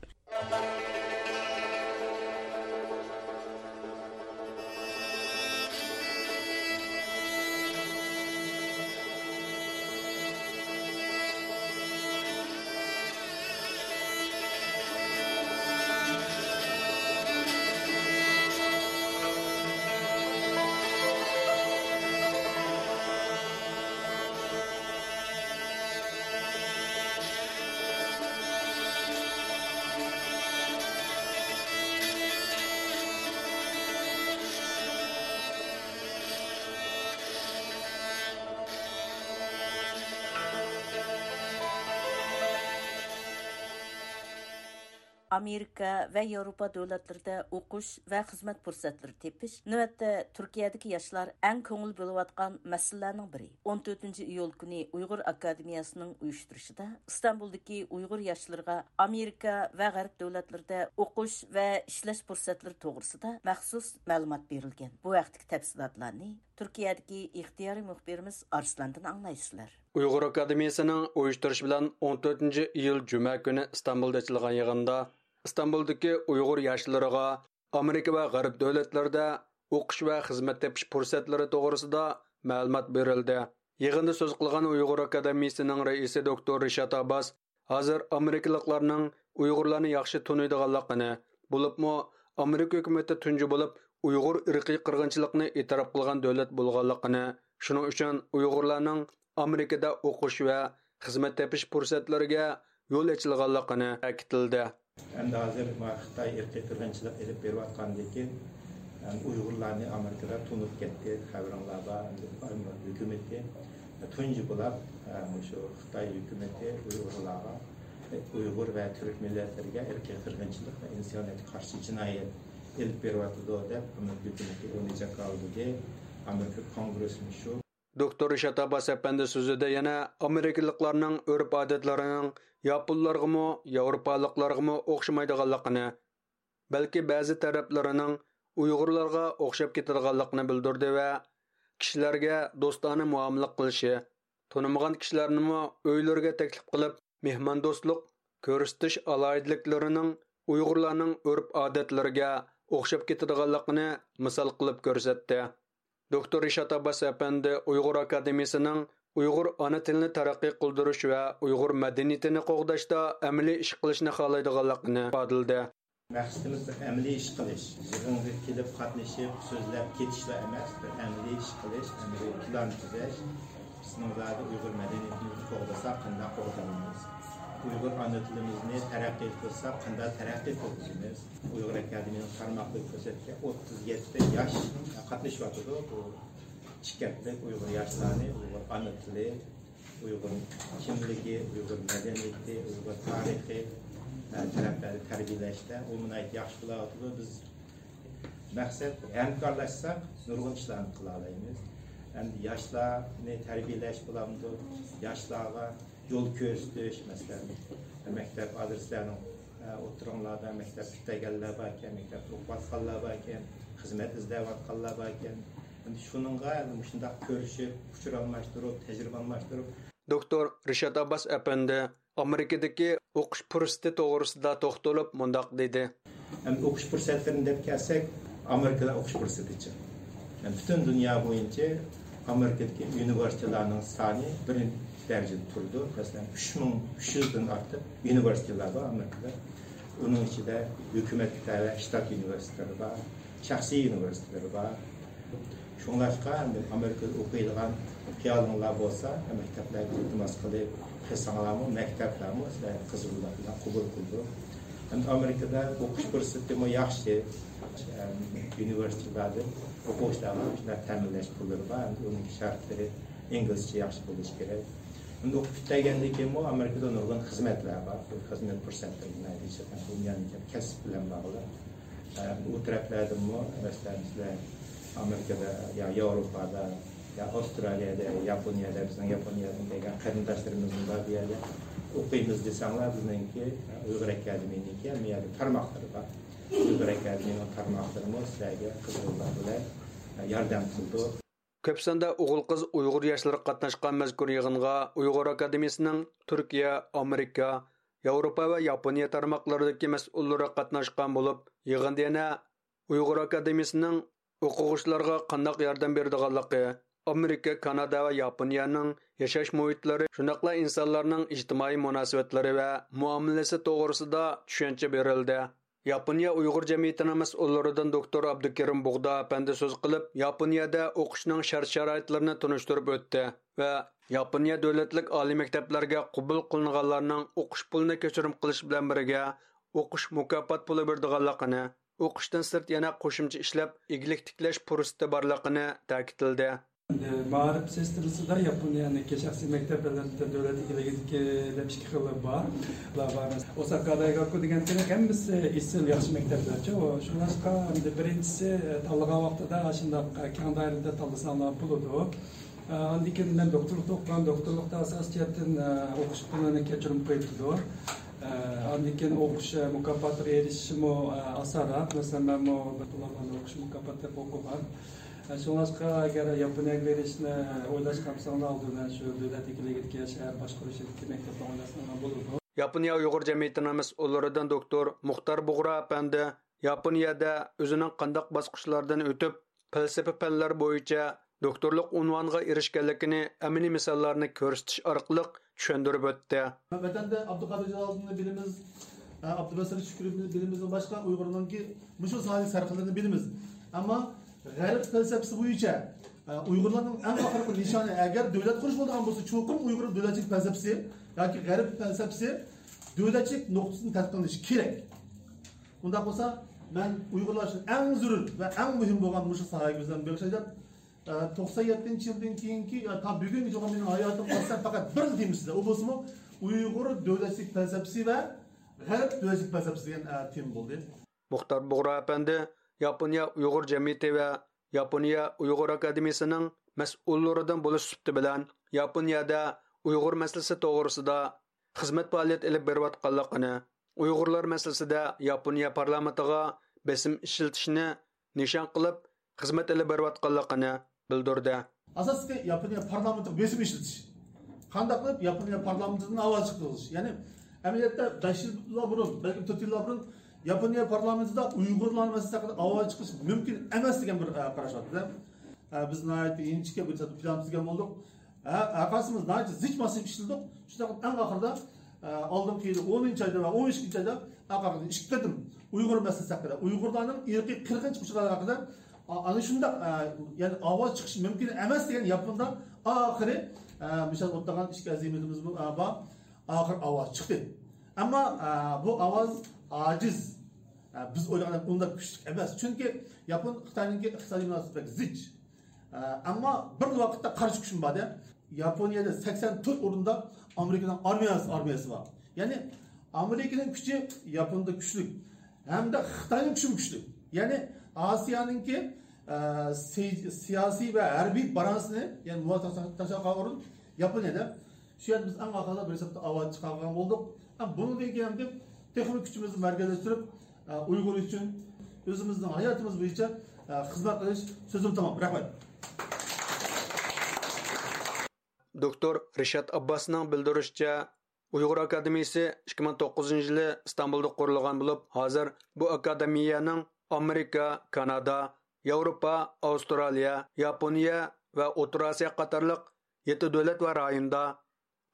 ئامېرىكا ۋە ياۋروپا دۆلەتلىرىدە ئوقۇش ۋە خىزمەت پۇرسەتلىرى تېپىش نۆۋەتتە تۈركىيەدىكى ياشلار ئەڭ كۆڭۈل بۆلۈۋاتقان مەسىلىلەرنىڭ بىرى. ئون تۆتىنچى ئىيۇل كۈنى ئۇيغۇر ئاكادېمىيەسىنىڭ ئۇيۇشتۇرۇشىدا ئىستانبۇلدىكى ئۇيغۇر ياشلىرىغا ئامېرىكا ۋە غەرب دۆلەتلىرىدە ئوقۇش ۋە ئىشلەش پۇرسەتلىرى توغرىسىدا مەخسۇس مەلۇمات بېرىلگەن. بۇ ھەقتىكى تەپسىلاتلارنى تۈركىيەدىكى ئىختىيارىي مۇخبىرىمىز ئارسلاندىن ئاڭلايسىلەر. ئۇيغۇر ئاكادېمىيەسىنىڭ ئۇيۇشتۇرۇشى بىلەن ئون تۆتىنچى ئىيۇل جۈمە كۈنى ئىستانبۇلدا ئېچىلغان يىغىندا ئىستانبۇلدىكى ئۇيغۇر ياشلىرىغا ئامېرىكا ۋە غەرب دۆلەتلىرىدە ئوقۇش ۋە خىزمەت تېپىش پۇرسەتلىرى توغرىسىدا مەلۇمات بېرىلدى. يىغىندا سۆز قىلغان ئۇيغۇر ئاكادېمىيىسىنىڭ رەئىسى دوكتور رىشات ئابباس ھازىر ئامېرىكىلىقلارنىڭ ئۇيغۇرلارنى ياخشى تونۇيدىغانلىقىنى، بولۇپمۇ ئامېرىكا ھۆكۈمىتى تۇنجى بولۇپ ئۇيغۇر ئىرقىي قىرغىنچىلىقىنى ئېتىراپ قىلغان دۆلەت بولغانلىقىنى، شۇنىڭ ئۈچۈن ئۇيغۇرلارنىڭ ئامېرىكىدا ئوقۇش ۋە خىزمەت تېپىش پۇرسەتلىرىگە يول ئېچىلغانلىقىنى تەكىتلىدى. ئەمدى ھازىر ما خىتاي ئىرقىي قىرغىنچىلىق ئېلىپ بېرىۋاتقاندىن كېيىن، ئەم، ئۇيغۇرلارنى ئامېرىكىدا تونۇپ كەتتى. خەۋىرىڭلار بار، ئەمدى ئامېرىكا ھۆكۈمىتى تۇنجى بولاپ، ئە، مۇشۇ خىتاي ھۆكۈمىتى ئۇيغۇرلارغا، ئۇيغۇر ۋە تۈرك مىللەتلىرىگە ئىرقىي قىرغىنچىلىق ۋە ئىنسانىيەتكە قارشى جىنايەت ئېلىپ بېرىۋاتىدۇ دەپ، ئامېرىكا ھۆكۈمىتى ئۇنى جاكارلىدى. ئامېرىكا كونگرېسمۇ شۇ. دوكتور رىشات ئابباس ئەپەندى سۆزىدە يەنە ئامېرىكىلىقلارنىڭ ئۆرپ-ئادەتلىرىنىڭ ياپونلارغىمۇ، ياۋروپالىقلارغىمۇ ئوخشىمايدىغانلىقىنى، بەلكى بەزى تەرەپلىرىنىڭ ئۇيغۇرلارغا ئوخشاپ كېتىدىغانلىقىنى بىلدۈردى ۋە كىشىلەرگە دوستانە مۇئامىلە قىلىشى، تونۇمىغان كىشىلەرنىمۇ ئۆيلىرىگە تەكلىپ قىلىپ، مېھماندوستلۇق كۆرسىتىش ئالاھىدىلىكلىرىنىڭ ئۇيغۇرلارنىڭ ئۆرپ-ئادەتلىرىگە ئوخشاپ كېتىدىغانلىقىنى مىسال قىلىپ كۆرسەتتى. دوكتور رىشات ئابباس ئەپەندى ئۇيغۇر ئاكادېمىيىسىنىڭ ئۇيغۇر ئانا تىلىنى تەرەققىي قىلدۇرۇش ۋە ئۇيغۇر مەدەنىيىتىنى قوغداشتا ئەمەلىي ئىش قىلىشنى خالايدىغانلىقىنى ئىپادىلىدى. مەقسىتىمىز بىر ئەمەلىي ئىش قىلىش، يىغىنغا كېلىپ قاتنىشىپ سۆزلەپ كېتىشلا ئەمەس، بىر ئەمەلىي ئىش قىلىش، ئەمەلىي پىلان تۈزەش. بىزنىڭ زادى ئۇيغۇر مەدەنىيىتىمىزنى قوغدىساق قانداق قوغدايمىز؟ ئۇيغۇر ئانا تىلىمىزنى تەرەققىي قىلساق قانداق تەرەققىي قىلغۇزىمىز؟ ئۇيغۇر ئاكادېمىيەنىڭ تارماقلىرى كۆرسەتكەن ئوتتۇز يەتتە ياش قاتنىشىۋاتىدۇ. بۇ ئىككى ھەپتىلىك ئۇيغۇر ياشلارنى ئۇيغۇر ئانا تىلى، ئۇيغۇر كىملىكى، ئۇيغۇر مەدەنىيىتى، ئۇيغۇر تارىخى، ئە، تەرەپلەردە تەربىيەلەشتە ئۇ ناھايىتى ياخشى بولاۋاتىدۇ. بىز مەقسەت ھەمكارلاشساق نۇرغۇن ئىشلارنى قىلالايمىز. ئەمدى ياشلارنى تەربىيەلەش بولامدۇ؟ ياشلارغا يول كۆرسىتىش، مەسىلەن، مەكتەپ ئادرېسلەرنىڭ، ئە، ئوتتۇرىڭلاردا مەكتەپ پۈتتۈرگەنلەر باركەن، مەكتەپتە ئوقۇۋاتقانلار باركەن، خىزمەت ئىزدەۋاتقانلار باركەن. ئەمدى شۇنىڭغا ئەمدى مۇشۇنداق كۆرۈشۈپ، ئۇچۇر ئالماشتۇرۇپ، تەجرىبە ئالماشتۇرۇپ، دوكتور رىشات ئابباس ئەپەندى ئامېرىكىدىكى ئوقۇش پۇرسىتى توغرىسىدا توختىلىپ مۇنداق دېدى. ئەمدى ئوقۇش پۇرسەتلىرىنى دەپ كەلسەك، ئامېرىكىدا ئوقۇش پۇرسىتىچە. يەنى پۈتۈن دۇنيا بويىچە ئامېرىكىدىكى ئۇنىۋېرسىتېتلارنىڭ سانى بىرىنچى دەرىجىدە تۇرىدۇ. مەسىلەن، ئۈچ مىڭ ئۈچ يۈزدىن ئارتۇق ئۇنىۋېرسىتېتلار بار ئامېرىكىدا. ئۇنىڭ ئىچىدە ھۆكۈمەتكە تەۋە شتات ئۇنىۋېرسىتېتلىرى بار، شەخسىي ئۇنىۋېرسىتېتلىرى بار. شۇڭلاشقا، ئەمدى ئامېرىكىدا ئوقۇيدىغان خىيالىڭلار بولسا، مەكتەپلەرگە ئىلتىماس قىلىپ قىلساڭلارمۇ، مەكتەپلەرمۇ سىلەرنى قىزغىنلىق بىلەن قوبۇل قىلىدۇ. ئەمدى ئامېرىكىدا ئوقۇش پۇرسىتىمۇ ياخشى. ئۇنىۋېرسىتېتلاردىن ئوقۇغۇچىلارغا شۇنداق تەمىنلەش پۇللىرى بار. ئەمدى ئۇنىڭ شەرتلىرى ئىنگلىزچە ياخشى بولۇشى كېرەك. ئەمدى ئوقۇپ پۈتتۈرگەندىن كېيىنمۇ ئامېرىكىدا نۇرغۇن خىزمەتلەر بار. بۇ خىزمەت پۇرسەتلىرى دېيىشىدىغان دۇنيانىڭ كەسىپ بىلەن باغلىق. ئۇ تەرەپلەردىنمۇ، مەسىلەن، بىزلەر ئامېرىكىدا يا ياۋروپادا يا ئاۋسترالىيەدە، ياپونىيەدە، بىزنىڭ ياپونىيەدىن كەلگەن قېرىنداشلىرىمىزمۇ بار بۇ يەردە. ئوقۇيمىز دېسەڭلار، بىزنىڭكى ئۇيغۇر ئاكادېمىيىنىڭكى ھەممە يەردە تارماقلىرى بار. ئۇيغۇر ئاكادېمىيىنىڭ تارماقلىرىمۇ سىلەرگە قىزغىنلىق بىلەن ياردەم قىلىدۇ. كۆپ ساندا ئوغۇل-قىز ئۇيغۇر ياشلىرى قاتناشقان مەزكۇر يىغىنغا ئۇيغۇر ئاكادېمىيىسىنىڭ تۈركىيە، ئامېرىكا، ياۋروپا ۋە ياپونىيە تارماقلىرىدىكى مەسئۇللىرى قاتناشقان بولۇپ، يىغىندا يەنە ئۇيغۇر ئاكادېمىيىسىنىڭ ئوقۇغۇچىلارغا قانداق ياردەم بېرىدىغانلىقى، ئامېرىكا، كانادا ۋە ياپونىيەنىڭ ياشاش مۇھىتلىرى، شۇنداقلا ئىنسانلارنىڭ ئىجتىمائىي مۇناسىۋەتلىرى ۋە مۇئامىلىسى توغرىسىدا چۈشەنچە بېرىلدى. ياپونىيە ئۇيغۇر جەمئىيىتىنىڭ مەسئۇللىرىدىن دوكتور ئابدۇكېرىم بۇغدا ئەپەندى سۆز قىلىپ، ياپونىيەدە ئوقۇشنىڭ شەرت-شارائىتلىرىنى تونۇشتۇرۇپ ئۆتتى ۋە ياپونىيە دۆلەتلىك ئالىي مەكتەپلەرگە قوبۇل قىلىنغانلارنىڭ ئوقۇش پۇلىنى كەچۈرۈم قىلىش بىلەن بىرگە، ئوقۇش مۇكاپات پۇلى بېرىدىغانلىقىنى، ئوقۇشتىن سىرت يەنە قوشۇمچە ئىشلەپ، ئىگىلىك تىكلەش پۇرسىتى بارلىقىنى تەكىتلىدى. ئەمدى مائارىپ سىستېمىسىدا ياپونىيەنىڭكى شەخسىي مەكتەپلىرىدە دۆلەت ئىگىلىكىدىكى دەپ ئىككى خىلى بار. بۇلار بار. ئوساكا دايگاكۇ دېگەن تېخى ھەممىسى ئېسىل ياخشى مەكتەپلەرچۇ. شۇڭلاشقا ئەمدى بىرىنچىسى، تاللىغان ۋاقتىدا ئاشۇنداق كەڭ دائىرىدە تاللىساڭلار بولىدۇ. ئاندىن كېيىن مەن دوكتورلۇقتا ئوقۇغان، دوكتورلۇقتا ئاساسىي جەھەتتىن ئوقۇش پۇلىنى كەچۈرۈم قويۇپتۇ. ئاندىن كېيىن ئوقۇش مۇكاپاتىغا ئېرىشىشىمۇ ئاسانراق. مەسىلەن، مەنمۇ بىر پۇل ئالماي ئوقۇش مۇكاپاتى دەپ ئوقۇغان. شۇڭلاشقا ئەگەر ياپونىيەگە بېرىشنى ئويلاشقان بولساڭلار، ئالدى بىلەن شۇ دۆلەت ئىگىلىكىدىكى شەھەر باشقۇرۇشىدىكى مەكتەپتە ئويلاشساڭلار بولىدۇ. ياپونىيە ئۇيغۇر جەمئىيىتىنىڭ مەسئۇللىرىدىن دوكتور مۇختار بۇغرا ئەپەندى ياپونىيەدە ئۆزىنىڭ قانداق باسقۇچلاردىن ئۆتۈپ، پەلسەپە پەنلەر بويىچە دوكتورلۇق ئۇنۋانىغا ئېرىشكەنلىكىنى ئەمەلىي مىساللارنى كۆرسىتىش ئارقىلىق چۈشەندۈرۈپ ئۆتتى. ۋەتەندە ئابدۇقادىر جالالىدىننى بىلىمىز، ئابدۇباسىر شۈكۈرنى بىلىمىزدىن باشقا ئۇيغۇرنىڭكى مۇشۇ ساھەدىكى سەرخىللىرىنى بىلىمىز. ئەمما غەرب پەلسەپىسى بويىچە ئۇيغۇرلارنىڭ ئەڭ ئاخىرقى نىشانى، ئەگەر دۆلەت قۇرۇش بولىدىغان بولسا، چوقۇم ئۇيغۇر دۆلەتچىلىك پەلسەپىسى ياكى غەرب پەلسەپىسى دۆلەتچىلىك نۇقتىسىدىن تەتقىق قىلىنىشى كېرەك. ئۇنداق بولسا، مەن ئۇيغۇرلار ئۈچۈن ئەڭ زۆرۈر ۋە ئەڭ مۇھىم بولغان مۇشۇ ساھەگە ئۆزۈمنى بېغىشلاي دەپ، ئە، توقسان يەتتىنچى يىلدىن كېيىنكى، يا، تا بۈگۈنگىچە بولغان مېنىڭ ھاياتىمغا قارىسام، پەقەت بىرلا تېمىسىدا، ئۇ بولسىمۇ ئۇيغۇر دۆلەتچىلىك پەلسەپىسى ۋە غەرب دۆلەتچىلىك پەلسەپىسى دېگەن، ئە، تېما بولدى. مۇختار بۇغرا ئەپەندى ياپونىيە ئۇيغۇر جەمئىيىتى ۋە ياپونىيە ئۇيغۇر ئاكادېمىيىسىنىڭ مەسئۇللىرىدىن بولۇش سۈپىتى بىلەن، ياپونىيەدە ئۇيغۇر مەسىلىسى توغرىسىدا خىزمەت پائالىيەت ئېلىپ بېرىۋاتقانلىقىنى، ئۇيغۇرلار مەسىلىسىدە ياپونىيە پارلامېنتىغا بېسىم ئىشلىتىشنى نىشان قىلىپ خىزمەت ئېلىپ بېرىۋاتقانلىقىنى بىلدۈردى. ئاساسلىقى ياپونىيە پارلامېنتىغا بېسىم ئىشلىتىش. قانداق قىلىپ ياپونىيە پارلامېنتىدىن ئاۋاز چىقىرىش؟ يەنى ئەمەلىيەتتە بەش يىللار بۇرۇن، بەلكىم تۆت يىللار بۇرۇن ياپونىيە پارلامېنتىدا ئۇيغۇرلار مەسىلىسى ھەققىدە ئاۋاز چىقىرىش مۇمكىن ئەمەس دېگەن بىر، ئە، قاراش بار ئىدى. ئە، بىز ناھايىتى ئىنچىكە بىر پىلان تۈزگەن بولدۇق. ھە، ھەرقايسىمىز ناھايىتى زىچ ماسىپ ئىشلىدۇق. شۇنداق قىلىپ ئەڭ ئاخىرىدا، ئە، ئالدىنقى يىلى ئونىنچى ئايدا ۋە ئون ئىككىنچى ئايدا ئاقارغا ئىككى قېتىم ئۇيغۇر مەسىلىسى ھەققىدە، ئۇيغۇرلارنىڭ ئىرقىي قىرغىنچىلىق ئۇچۇرلىرى ھەققىدە، ئا-، ئەنە شۇنداق، ئە، يەنى ئاۋاز چىقىشى مۇمكىن ئەمەس دېگەن ياپوندا ئاخىرى، ئە، مىسال ئوتتۇرىغان ئىككى ئەزىمىتىمىزمۇ، ئە، بار. ئاخىر ئاۋاز چىقتى. ئەمما، ئە، بۇ ئاۋاز ئاجىز. ئە، بىز ئويلىغاندەك ئۇنداق كۈچلۈك ئەمەس. چۈنكى ياپون خىتاينىڭكى ئىقتىسادىي مۇناسىۋىتى بەك زىچ. ئە، ئەمما بىر ۋاقىتتا قارشى كۈچمۇ بار-دە. ياپونىيەدە سەكسەن تۆت ئورۇندا ئامېرىكىنىڭ ئارمىيەسى، ئارمىيەسى بار. يەنى ئامېرىكىنىڭ كۈچى ياپوندا كۈچلۈك. ھەمدە خىتاينىڭ كۈچىمۇ كۈچلۈك. يەنى ئاسىيانىڭكى ئە، سىي-، سىياسىي ۋە ھەربىي بالانسنى، يەنى مۇۋاپىق تاشلىغان ئورۇن ياپونىيەدە. شۇ يەردە بىز ئەڭ ئاخىرىدا بىر ھېسابتا ئاۋات چىقارغان بولدۇق. ھەم بۇنىڭدىن كېيىن ھەم تېخىمۇ كۈچىمىزنى مەركەزلەشتۈرۈپ، ئە، ئۇيغۇر ئۈچۈن ئۆزىمىزنىڭ ھاياتىمىز بويىچە، ئە، خىزمەت قىلىش. سۆزۈم تامام. رەھمەت. دوكتور رىشات ئابباسنىڭ بىلدۈرۈشىچە، ئۇيغۇر ئاكادېمىيىسى ئىككى مىڭ توققۇزىنچى يىلى ئىستانبۇلدا قۇرۇلغان بولۇپ، ھازىر بۇ ئاكادېمىيەنىڭ ئامېرىكا، كانادا، ياۋروپا، ئاۋسترالىيە، ياپونىيە ۋە ئوتتۇرا ئاسىيا قاتارلىق يەتتە دۆلەت ۋە رايوندا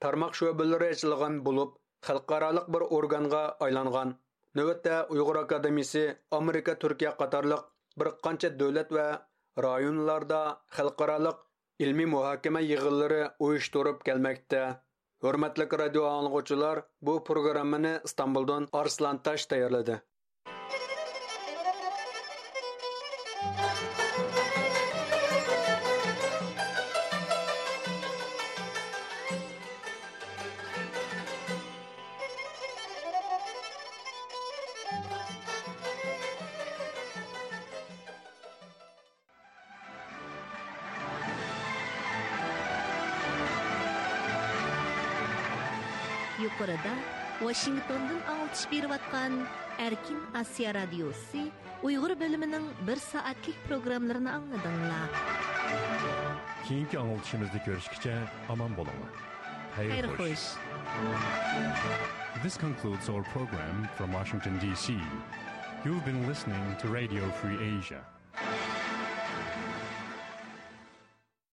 تارماق شۆبىلىرى ئېچىلغان بولۇپ، خەلقئارالىق بىر ئورگانغا ئايلانغان. نۆۋەتتە ئۇيغۇر ئاكادېمىيىسى ئامېرىكا، تۈركىيە قاتارلىق بىر قانچە دۆلەت ۋە رايونلاردا خەلقئارالىق ئىلمىي مۇھاكىمە يىغىنلىرى ئۇيۇشتۇرۇپ كەلمەكتە. ھۆرمەتلىك رادىيو ئاڭلىغۇچىلار، بۇ پروگراممىنى ئىستانبۇلدىن ئارسلان تاش تەييارلىدى. يۇقىرىدا ۋاشىنگتوندىن ئاڭلىتىش بېرىۋاتقان ئەركىن ئاسىيا رادىيوسى ئۇيغۇر بۆلۈمىنىڭ بىر سائەتلىك پروگراممىلىرىنى ئاڭلىدىڭلار. كېيىنكى ئاڭلىتىشىمىزدا كۆرۈشكىچە ئامان بولۇڭلار. خەير خوش. This concludes our program from Washington, D C. You've been listening to Radio Free Asia.